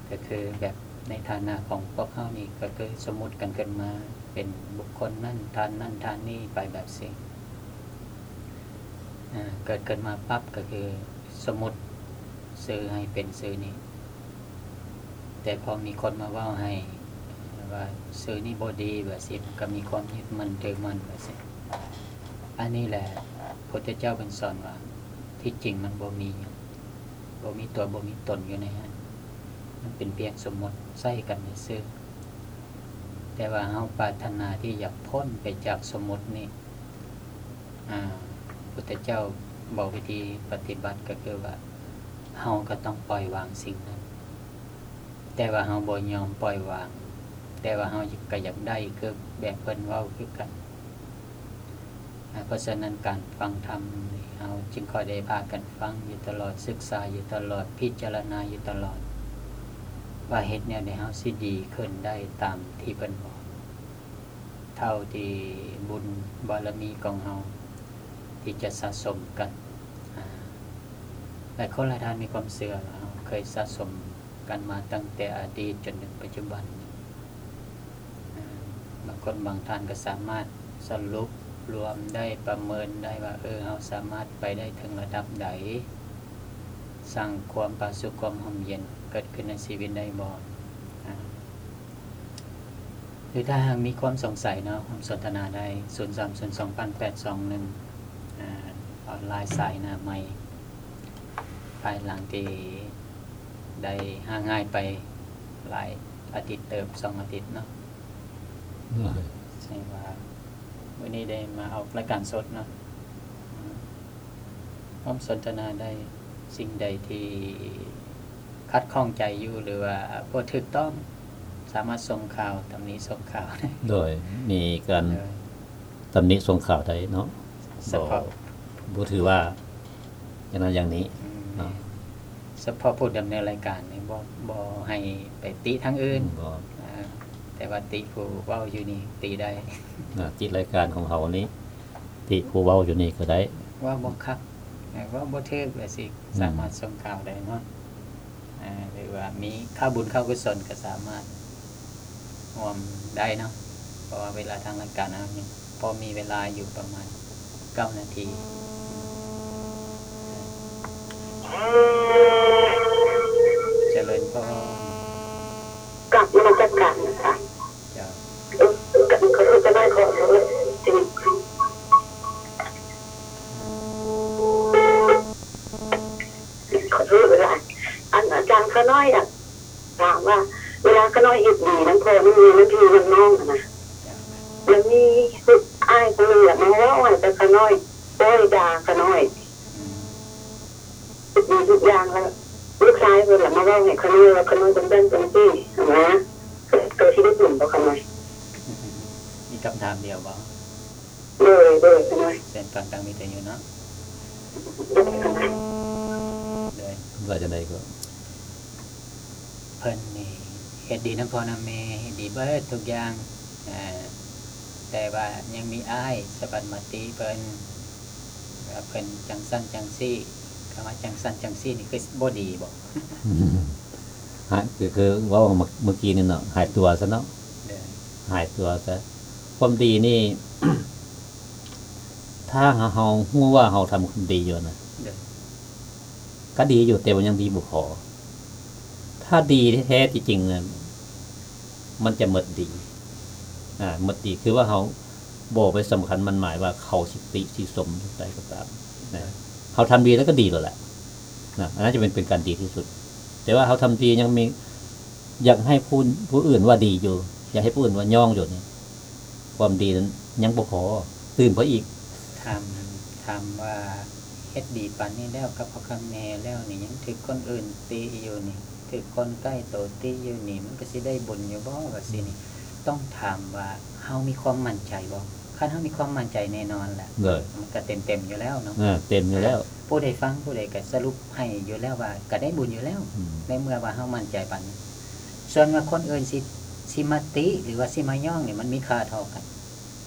ກໍຄືແບບໃນຖານະຂອງພວກເຮົານີ້ ກໍຄືສົມມຸດກັນຂຶ້ນມາເປັນບຸກຄົນນັ້ນ ທ່ານນັ້ນ ທ່ານນີ້ໄປແບບຊີ້. ອາ ເກີດຂຶ້ນມາປັບກໍຄືສົມມຸດຊື່ໃຫ້ເປັນຊື່ນີ້ ແຕ່ພໍມີຄົນມາເວົ້າໃຫ້ວ່າຊື່ນີ້ບໍ່ດີ ແບບຊີ້ ມັນກໍມີຄວາມຍຶດໝັ້ນຖືໝັ້ນ ແບບຊີ້. ອັນນີ້ແຫຼະ ພຸດທະເຈົ້າເພິ່ນສອນວ່າ ທີ່ຈິງມັນບໍ່ມີຫຍັງ, ບໍ່ມີຕົວ ບໍ່ມີຕົນຢູ່ໃນຫັ້ນ, ມັນເປັນພຽງສົມມຸດໃຊ້ກັນຊື່ໆ. ແຕ່ວ່າເຮົາປາດຖະໜາທີ່ຢາກພົ້ນໄປຈາກສົມມຸດນີ້, ອາ, ພຸດທະເຈົ້າບອກວິທີປະຕິບັດກໍຄືວ່າ ເຮົາກໍຕ້ອງປ່ອຍວາງສິ່ງນັ້ນ. ແຕ່ວ່າເຮົາບໍ່ຍອມປ່ອຍວາງ, ແຕ່ວ່າເຮົາກໍຢາກໄດ້ຄືແບບເພິ່ນເວົ້າຄືກັນ. ອາ ເພາະສະນັ້ນການຟັງທຳນີ້ ເຮົາຈຶ່ງຄ່ອຍໄດ້ພາກັນຟັງຢູ່ຕະຫຼອດ, ສຶກສາຢູ່ຕະຫຼອດ, ພິຈາລະນາຢູ່ຕະຫຼອດ ວ່າເຮັດແນວໃດເຮົາຊິດີຂຶ້ນໄດ້ຕາມທີ່ເພິ່ນບອກ. ເທົ່າທີ່ບຸນບາລະມີຂອງເຮົາທີ່ຈະສະສົມກັນ. ອາ ຫຼາຍຄົນຫຼາຍທ່ານມີຄວາມເຊື່ອວ່າເຮົາເຄີຍສະສົມກັນມາຕັ້ງແຕ່ອະດີດຈົນເຖິງປັດຈຸບັນ. ອາ ບາງຄົນບາງທ່ານກໍສາມາດສະຫຼຸບລວມໄດ້, ປະເມີນໄດ້ວ່າ ເອີ ເຮົາສາມາດໄປໄດ້ເຖິງລະດັບໃດ. ສ້າງຄວາມຜາສຸກຄວາມຮົ່ມເຢັນເກີດຂຶ້ນໃນຊີວິດໄດ້ບໍ່? ອາ ຫຼືຖ້າຫາກມີຄວາມສົງໄສເນາະ ຮ່ວມສົນທະນາໄດ້ ສູນສາມສູນສອງແປດສອງໜຶ່ງ ອາ ອອນລາຍສາຍໜ້າໃໝ່ ພາຍຫຼັງທີ່ໄດ້ຫ່າງຫາຍໄປຫຼາຍອາທິດເຕີບ ສອງອາທິດເນາະ ໂດຍ ແສດງວ່າມື້ນີ້ໄດ້ມາອອກລາຍການສົດເນາະ ອາ ຮ່ວມສົນທະນາໄດ້ ສິ່ງໃດທີ່ຂັດຂ້ອງໃຈຢູ່ ຫຼືວ່າບໍ່ຖືກຕ້ອງ ສາມາດສົ່ງຂ່າວ ຕຳໜິສົ່ງຂ່າວໄດ້ ໂດຍ ມີການ ໂດຍ ຕຳໜິສົ່ງຂ່າວໄດ້ເນາະ ສະເພາະ ບໍ່ ບໍ່ຖືວ່າຢ່າງນັ້ນຢ່າງນີ້ ອືມ ເນາະ ສະເພາະຜູ້ດຳເນີນລາຍການນີ້ ບໍ່ ບໍ່ໃຫ້ໄປຕິທາງອື່ນ ອືມ ບໍ່ ອາ ແຕ່ວ່າຕິຜູ້ເວົ້າຢູ່ນີ້ຕິໄດ້ ອາ ຕິລາຍການຂອງເຮົານີ້ ຕິຜູ້ເວົ້າຢູ່ນີ້ກໍໄດ້ ເວົ້າບໍ່ຄັກ ເວົ້າບໍ່ຖືກ ແບບຊີ້ ອືມ ສາມາດສົ່ງຂ່າວໄດ້ເນາະ ອາ ຫຼືວ່າມີຂ່າວບຸນຂ່າວກຸສົນກໍສາມາດຮ່ວມໄດ້ເນາະ ເພາະວ່າເວລາທາງລາຍການເຮົາຍັງພໍມີເວລາຢູ່ປະມານເກົ້ານາທີ ຈະເລີນພອນ ກາບນະມັດສະການນະຄະ ເຈົ້າ ເອີ ຂໍໂທດ ຈະໄດ້ຂໍໂທດ ຂໍໂທດຫຼາຍ ອັນ ອາຈານ ຂ້ານ້ອຍຢາກຖາມວ່າ ເວລາຂ້ານ້ອຍເຮັດດີນຳພໍ່ນຳແມ່ນຳພີ່ນຳນ້ອງຫັ້ນນະ ແລ້ວມີອ້າຍຄົນໜຶ່ງລະມາເວົ້າໃຫ້ແຕ່ຂ້ານ້ອຍ ປ້ອຍດ່າຂ້ານ້ອຍ ອືມ ເຮັດດີທຸກຢ່າງ ແລ້ວລູກຊາຍເພິ່ນລະມາເວົ້າໃຫ້ຂ້ານ້ອຍວ່າ ຂ້ານ້ອຍຈັ່ງຊັ້ນຈັ່ງຊີ້ຫັ້ນນະ ກໍຊິໄດ້ບຸນບໍ່ຂ້ານ້ອຍ? ມີຄຳຖາມດຽວບໍ່? ໂດຍ ໂດຍ ຂ້ານ້ອຍ ເຊີນຟັງທາງວິທະຍຸເນາະ ໂດຍ ຂ້ານ້ອຍ ໂດຍ ວ່າຈັ່ງໃດກໍ? ເພິ່ນນີ້ເຮັດດີນຳພໍ່ນຳແມ່ ເຮັດດີເບິດທຸກຢ່າງ ເອີ ແຕ່ວ່າຍັງມີອ້າຍສະບັດມາຕິເພິ່ນ ວ່າເພິ່ນຈັ່ງຊັ້ນຈັ່ງຊີ້ ຄຳວ່າຈັ່ງຊັ້ນຈັ່ງຊີ້ນີ້ຄືບໍ່ດີບໍ? ຮະ ຄື ຄືເວົ້າເມື່ອ ເມື່ອກີ້ນີ້ເນາະ ຫາຍຕົວຊະເນາະ ໂດຍ ຫາຍຕົວຊະ ຄວາມດີນີ້ ຖ້າເຮົາ ເຮົາຮູ້ວ່າເຮົາທຳຄວາມດີຢູ່ນະ ໂດຍ ກໍດີຢູ່ ແຕ່ວ່າຍັງດີບໍ່ພໍ ຖ້າດີແທ້ໆ ຈິງໆ ນະ ມັນຈະໝົດດີ ອາ ໝົດດີ ຄືວ່າເຮົາບໍ່ໄປສຳຄັນໝັ້ນໝາຍວ່າເຂົາຊິຕິຊິຊົມຈັ່ງໃດກໍຕາມນະ ເຮົາທຳດີແລ້ວກໍດີແລ້ວແຫຼະນະ ອັນນັ້ນຈະເປັນ ເປັນການດີທີ່ສຸດ ແຕ່ວ່າເຮົາທຳດີຍັງມີ ຢາກໃຫ້ຜູ້ ຜູ້ອື່ນວ່າດີຢູ່ ຢາກໃຫ້ຜູ້ອື່ນວ່າຍ້ອງຢູ່ນີ້ ຄວາມດີນັ້ນຍັງບໍ່ພໍ ຕື່ມໄປອີກ ຖາມ ຖາມວ່າເຮັດດີປານນີ້ແລ້ວ ກັບພໍ່ກັບແມ່ແລ້ວນີ້ ຍັງຖືກຄົນອື່ນຕິຢູ່ນີ້ ຖືກຄົນໃກ້ໂຕຕິຢູ່ນີ້ ມັນກໍຊິໄດ້ບຸນຢູ່ບໍ່ ວ່າຊີ້ນີ້ ອືມ ຕ້ອງຖາມວ່າເຮົາມີຄວາມໝັ້ນໃຈບໍ່? ຄັນເຮົາມີຄວາມໝັ້ນໃຈແນ່ນອນແຫຼະ ໂດຍ ມັນກໍເຕັມໆຢູ່ແລ້ວເນາະ ເອີ ເຕັມຢູ່ແລ້ວ ຜູ້ໃດຟັງ ຜູ້ໃດກໍສະຫຼຸບໃຫ້ຢູ່ແລ້ວວ່າ ກໍໄດ້ບຸນຢູ່ແລ້ວ ອືມ ໃນເມື່ອວ່າເຮົາໝັ້ນໃຈປານນັ້ນ ສ່ວນວ່າຄົນອື່ນຊິ ຊິມາຕິ ຫຼືວ່າຊິມາຍ້ອງນີ້ ມັນມີຄ່າເທົ່າກັນ.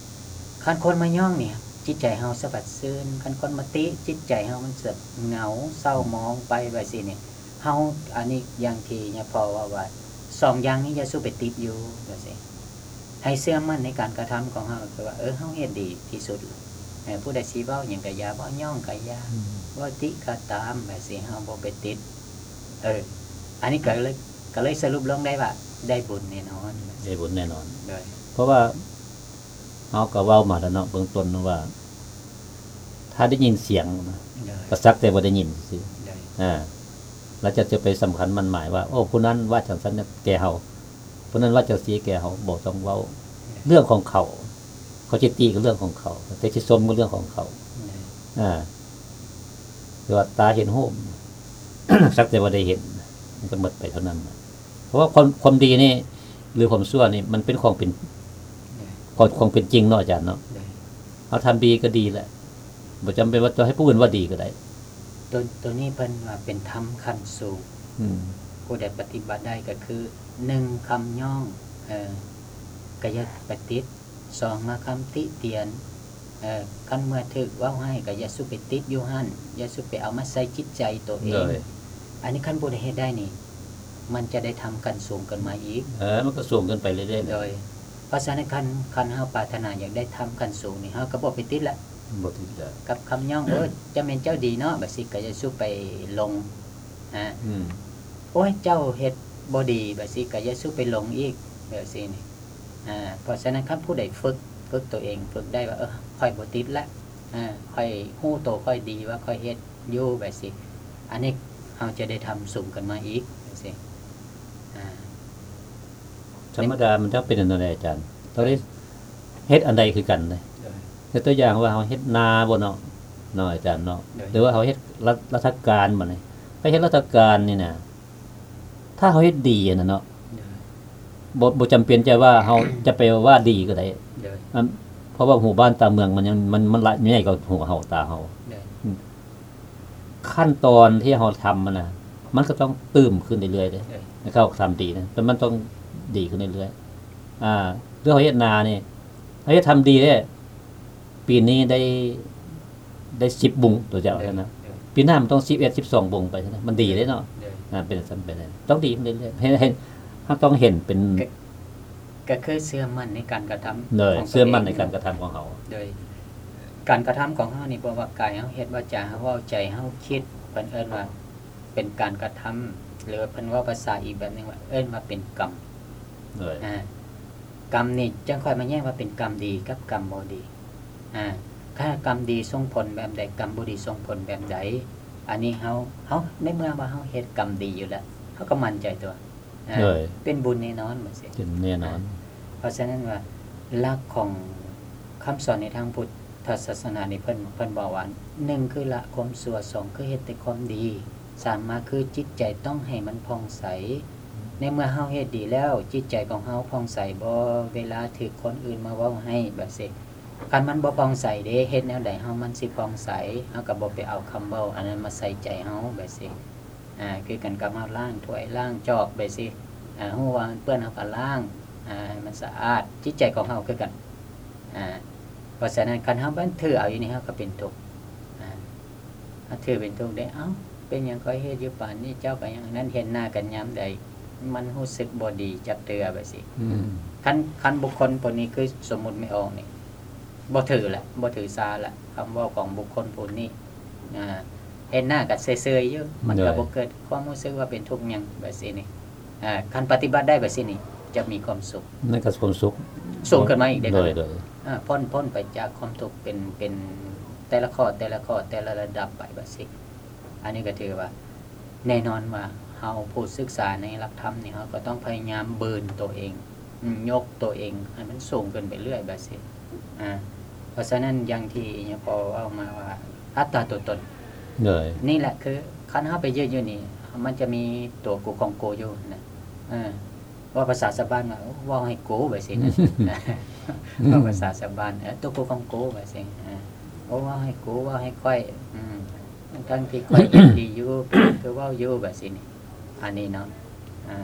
ຄັນຄົນມາຍ້ອງນີ້ ຈິດໃຈເຮົາສະບັດຊື່ນ, ຄັນຄົນມາຕິ ຈິດໃຈເຮົາມັນຈະເຫງົາເສົ້າໝອງໄປແບບຊີ້ນີ້. ເຮົາ ອັນນີ້ຢ່າງທີ່ຍາພໍ່ເວົ້າວ່າ ສອງຢ່າງນີ້ຢ່າສູ່ໄປຕິດຢູ່ ວ່າຊີ້. ໃຫ້ເຊື່ອໝັ້ນໃນການກະທຳຂອງເຮົາ ຄືວ່າ ເອີ ເຮົາເຮັດດີທີ່ສຸດ. ເອີ ຜູ້ໃດຊິເວົ້າຫຍັງກະຢ່າ ເວົ້າຍ້ອງກະຢ່າ ອືມ ເວົ້າຕິກະຕາມ ແບບຊີ້ ເຮົາບໍ່ໄປຕິດ. ເອີ ອັນນີ້ກໍເລີຍ ກໍເລີຍສະຫຼຸບລົງໄດ້ວ່າ ໄດ້ບຸນແນ່ນອນ ໄດ້ບຸນແນ່ນອນ. ໂດຍ ເພາະວ່າເຮົາກໍເວົ້າມາແລ້ວເນາະ ເບື້ອງຕົ້ນວ່າ ຖ້າໄດ້ຍິນສຽງນະ ໂດຍ ກໍສັກແຕ່ວ່າໄດ້ຍິນຊື່ໆ ໂດຍ ອາ ແລ້ວຈະ ຈະໄປສຳຄັນໝັ້ນໝາຍວ່າ ໂອ້ ຜູ້ນັ້ນວ່າຈັ່ງຊັ້ນແກ່ເຮົາ ຜູ້ນັ້ນວ່າຈັ່ງຊີ້ແກ່ເຮົາ ບໍ່ຕ້ອງເວົ້າ ໂດຍ ເລື່ອງຂອງເຂົາ ເຂົາຊິຕິກໍເລື່ອງຂອງເຂົາ ແຕ່ຊິຊົມກໍເລື່ອງຂອງເຂົາ ໂດຍ ອາ ແຕ່ວ່າຕາເຫັນຮູບ ສັກແຕ່ວ່າໄດ້ເຫັນ ມັນກໍໝົດໄປເທົ່ານັ້ນ. ເພາະວ່າຄວາມ ຄວາມດີນີ້ ຫຼື ຄວາມຊົ່ວນີ້ ມັນເປັນຂອງເປັນ ໂດຍ ຂອງ ຂອງເປັນຈິງເນາະ ອາຈານເນາະ. ໂດຍ ເຮົາທຳດີກໍດີແຫຼະ ບໍ່ຈຳເປັນວ່າຕ້ອງໃຫ້ຜູ້ອື່ນວ່າດີກໍໄດ້. ໂຕ ໂຕນີ້ເພິ່ນວ່າເປັນທຳຂັ້ນສູງ ອືມ ຜູ້ໃດປະຕິບັດໄດ້ກໍຄື ໜຶ່ງ ຄຳຍ້ອງ ເອີ ກໍຢ່າໄປຕິດ. ສອງ ມາຄຳຕິຕຽນ ເອີ ຄັນເມື່ອຖືກເວົ້າຮ້າຍກໍຢ່າສູ່ໄປຕິດຢູ່ຫັ້ນ ຢ່າສູ່ໄປເອົາມາໃສ່ຈິດໃຈໂຕເອງ. ໂດຍ ອັນນີ້ຄັນຜູ້ໃດເຮັດໄດ້ນີ້ ມັນຈະໄດ້ທຳຂັ້ນສູງຂຶ້ນມາອີກ. ເອີ ມັນກໍສູງຂຶ້ນໄປເລື້ອຍໆ. ໂດຍ ເພາະສະນັ້ນ ຄັນ ຄັນເຮົາປາດຖະໜາຢາກໄດ້ທຳຂັ້ນສູງນີ້ ເຮົາກໍບໍ່ໄປຕິດລະ ບໍ່ຕິດລະ ກັບຄຳຍ້ອງ ໂອ້ ຈະແມ່ນເຈົ້າດີເນາະ ແບບຊີ້ ກໍຢ່າສູ່ໄປຫຼົງ ອາ ອືມ ໂອ້ຍ ເຈົ້າເຮັດບໍ່ດີ ແບບຊີ້ ກໍຢ່າສູ່ໄປຫຼົງອີກ ແບບຊີ້ນີ້. ອາ ເພາະສະນັ້ນ ຄັນຜູ້ໃດຝຶກ ຝຶກຕົວເອງ ຝຶກໄດ້ວ່າ ເອີ ຂ້ອຍບໍ່ຕິດລະ ອາ ຂ້ອຍຮູ້ໂຕຂ້ອຍດີວ່າຂ້ອຍເຮັດຢູ່ ແບບຊີ້ ອັນນີ້ເຮົາຈະໄດ້ທຳສູງຂຶ້ນມາອີກ ແບບຊີ້. ອາ ທຳມະດາມັນຕ້ອງເປັນອັນນັ້ນແຫຼະອາຈານ ຕ້ອງໄດ້ເຮັດອັນໃດຄືກັນເດ້. ໂດຍ ຍົກຕົວຢ່າງວ່າເຮົາເຮັດນາບໍ່ເນາະ ເນາະອາຈານເນາະ ໂດຍ ຫຼືວ່າເຮົາເຮັດລັດ ລັດຖະການບັດນີ້ ໄປເຮັດລັດຖະການນີ້ນະ ຖ້າເຮົາເຮັດດີຫັ້ນນະເນາະ ໂດຍ ບໍ່ ບໍ່ຈຳເປັນຈະວ່າເຮົາ ຈະໄປວ່າດີກໍໄດ້ ໂດຍ ອັນ ເພາະວ່າຫູບ້ານຕາເມືອງມັນຍັງ ມັນ ມັນຫຼາຍ ໃຫຍ່ກວ່າຫູເຮົາ ຕາເຮົາ ໂດຍ ອືມ ຂັ້ນຕອນທີ່ເຮົາທຳຫັ້ນນະ ມັນກໍຕ້ອງຕື່ມຂຶ້ນເລື້ອຍໆເດ້ ໂດຍ ໃຫ້ເຮົາທຳດີນະ ແຕ່ມັນຕ້ອງດີຂຶ້ນເລື້ອຍໆ. ອາ ຄືເຮົາເຮັດນານີ້ ເຮົາເຮັດທຳດີເດ້ ປີນີ້ໄດ້ ໄດ້ສິບບຸງ ຕົວຢ່າງ ໂດຍ ຊັ້ນນະ ໂດຍ ປີໜ້າມັນຕ້ອງສິບເອັດ ສິບສອງບຸງໄປຊັ້ນນະ ມັນດີເດ້ເນາະ ໂດຍ ອາ ເປັນຊັ້ນໄປເລີຍ ຕ້ອງດີຂຶ້ນເລື້ອຍໆ ເຫັນ ເຫັນ ເຮົາຕ້ອງເຫັນເປັນ ກໍ ກໍຄືເຊື່ອໝັ້ນໃນການກະທຳ ໂດຍ ຂອງຕົວເອງ ເຊື່ອໝັ້ນໃນການກະທຳຂອງເຮົາ ໂດຍ ການກະທຳຂອງເຮົານີ້ ບໍ່ວ່າກາຍເຮົາເຮັດ ວາຈາເຮົາເວົ້າ ໃຈເຮົາຄິດ ເພິ່ນເອີ້ນວ່າເປັນການກະທຳ ຫຼືວ່າເພິ່ນເວົ້າພາສາອີກແບບໜຶ່ງວ່າ ເອີ້ນວ່າເປັນກຳ ໂດຍ ອາ ກຳນີ້ຈັ່ງຄ່ອຍມາແຍກວ່າເປັນກຳດີກັບກຳບໍ່ດີ. ອາ ຖ້າກຳດີສົ່ງຜົນແບບໃດ ກຳບໍ່ດີສົ່ງຜົນແບບໃດ ອັນນີ້ເຮົາ ເຮົາ ໃນເມື່ອວ່າເຮົາເຮັດກຳດີຢູ່ແລ້ວ ເຮົາກໍໝັ້ນໃຈຕົວະ ອາ ໂດຍ ເປັນບຸນແນ່ນອນ ແບບຊີ້ ເປັນແນ່ນອນ. ອາ ເພາະສະນັ້ນວ່າ ຫຼັກຂອງຄຳສອນໃນທາງພຸດທະສາສະໜານີ້ ເພິ່ນ ເພິ່ນບອກວ່າ ໜຶ່ງ ຄືລະຄວາມຊົ່ວ ສອງ ຄືເຮັດແຕ່ຄວາມດີ ສາມ ມາ ຄືຈິດໃຈຕ້ອງໃຫ້ມັນຜ່ອງໃສ. ໃນເມື່ອເຮົາເຮັດດີແລ້ວ ຈິດໃຈຂອງເຮົາຜ່ອງໃສບໍ່ ເວລາຖືກຄົນອື່ນມາເວົ້າໃຫ້ ແບບຊີ້? ຄັນມັນບໍ່ຜ່ອງໃສເດ້ ເຮັດແນວໃດເຮົາມັນຊິຜ່ອງໃສ? ເຮົາກໍບໍ່ໄປເອົາຄຳເວົ້າອັນນັ້ນມາໃສ່ໃຈເຮົາ ແບບຊີ້. ອາ ຄືກັນກັບເຮົາລ້າງຖ້ວຍລ້າງຈອກ ແບບຊີ້. ອາ ຮູ້ວ່າມັນເປື້ອນ ເຮົາກໍລ້າງ ອາ ໃຫ້ມັນສະອາດ. ຈິດໃຈຂອງເຮົາຄືກັນ. ອາ ເພາະສະນັ້ນ ຄັນເຮົາບັນຖືເອົາຢູ່ນີ້ ເຮົາກໍເປັນທຸກ. ອາ ເຮົາຖືເປັນທຸກເດ້. ເອົ້າ ເປັນຫຍັງຂ້ອຍເຮັດຢູ່ປານນີ້ ເຈົ້າກໍຍັງອັນນັ້ນ ເຫັນໜ້າກັນຍາມໃດ ມັນຮູ້ສຶກບໍ່ດີຈັກເທື່ອ ແບບຊີ້. ອືມ ຄັນ ຄັນບຸກຄົນຜູ້ນີ້ ຄືສົມມຸດແມ່ອອກນີ້ ບໍ່ຖືລະ ບໍ່ຖືສາລະ ຄຳເວົ້າຂອງບຸກຄົນຜູ້ນີ້. ອາ ເຫັນໜ້າກໍເຊີຍໆຢູ່ ມັນກໍ ໂດຍ ບໍ່ເກີດຄວາມຮູ້ສຶກວ່າເປັນທຸກຫຍັງ ແບບຊີ້ນີ້. ອາ ຄັນປະຕິບັດໄດ້ແບບຊີ້ນີ້ ຈະມີຄວາມສຸກ ນັ້ນກໍຄວາມສຸກສູງຂຶ້ນມາອີກເດ້. ໂດຍ ໂດຍ ອາ ພົ້ນ ພົ້ນໄປຈາກຄວາມທຸກ ເປັນ ເປັນແຕ່ລະຂໍ້ ແຕ່ລະຂໍ້ ແຕ່ລະລະດັບໄປ ແບບຊີ້. ອັນນີ້ກໍຖືວ່າ ແນ່ນອນວ່າເຮົາຜູ້ສຶກສາໃນຫຼັກທຳນີ້ ເຮົາກໍຕ້ອງພະຍາຍາມບືນໂຕເອງ ຍົກໂຕເອງໃຫ້ມັນສູງຂຶ້ນໄປເລື້ອຍ ແບບຊີ້. ອາ ເພາະສະນັ້ນ ຢ່າງທີ່ຍາພໍ່ເວົ້າມາວ່າ ອັດຕາຕົວຕົນ. ໂດຍ ນີ້ແຫຼະ ຄືຄັນເຮົາໄປຢືນຢູ່ນີ້ ມັນຈະມີຕົວກູຂອງກູຢູ່ນະ. ເອີ ເວົ້າພາສາຊາວບ້ານວ່າ ເວົ້າໃຫ້ກູ ແບບຊີ້ນະ. ເວົ້າພາສາຊາວບ້ານ ເອີ ຕົວກູຂອງກູ ແບບຊີ້. ເອີ ໂອ້ ເວົ້າໃຫ້ກູ ເວົ້າໃຫ້ຂ້ອຍ. ອືມ ທັງທີ່ຂ້ອຍເຮັດດີຢູ່ ຄືເວົ້າຢູ່ ແບບຊີ້ນີ້. ອັນນີ້ເນາະ ອາ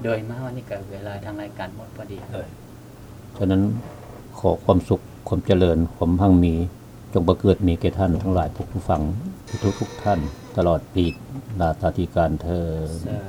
ໂດຍມາຮອດນີ້ກໍເວລາທາງລາຍການໝົດພໍດີ. ໂດຍ ສະນັ້ນ ຂໍຄວາມສຸກ ຄວາມຈະເລີນ ຄວາມຮັ່ງມີ ຈົ່ງບັງເກີດມີແກ່ທ່ານທັງຫຼາຍທຸກໆຝັ່ງ ທຸກໆທ່ານ ຕະຫຼອດປີລາຊາທິການເທີ້ນ. ສາ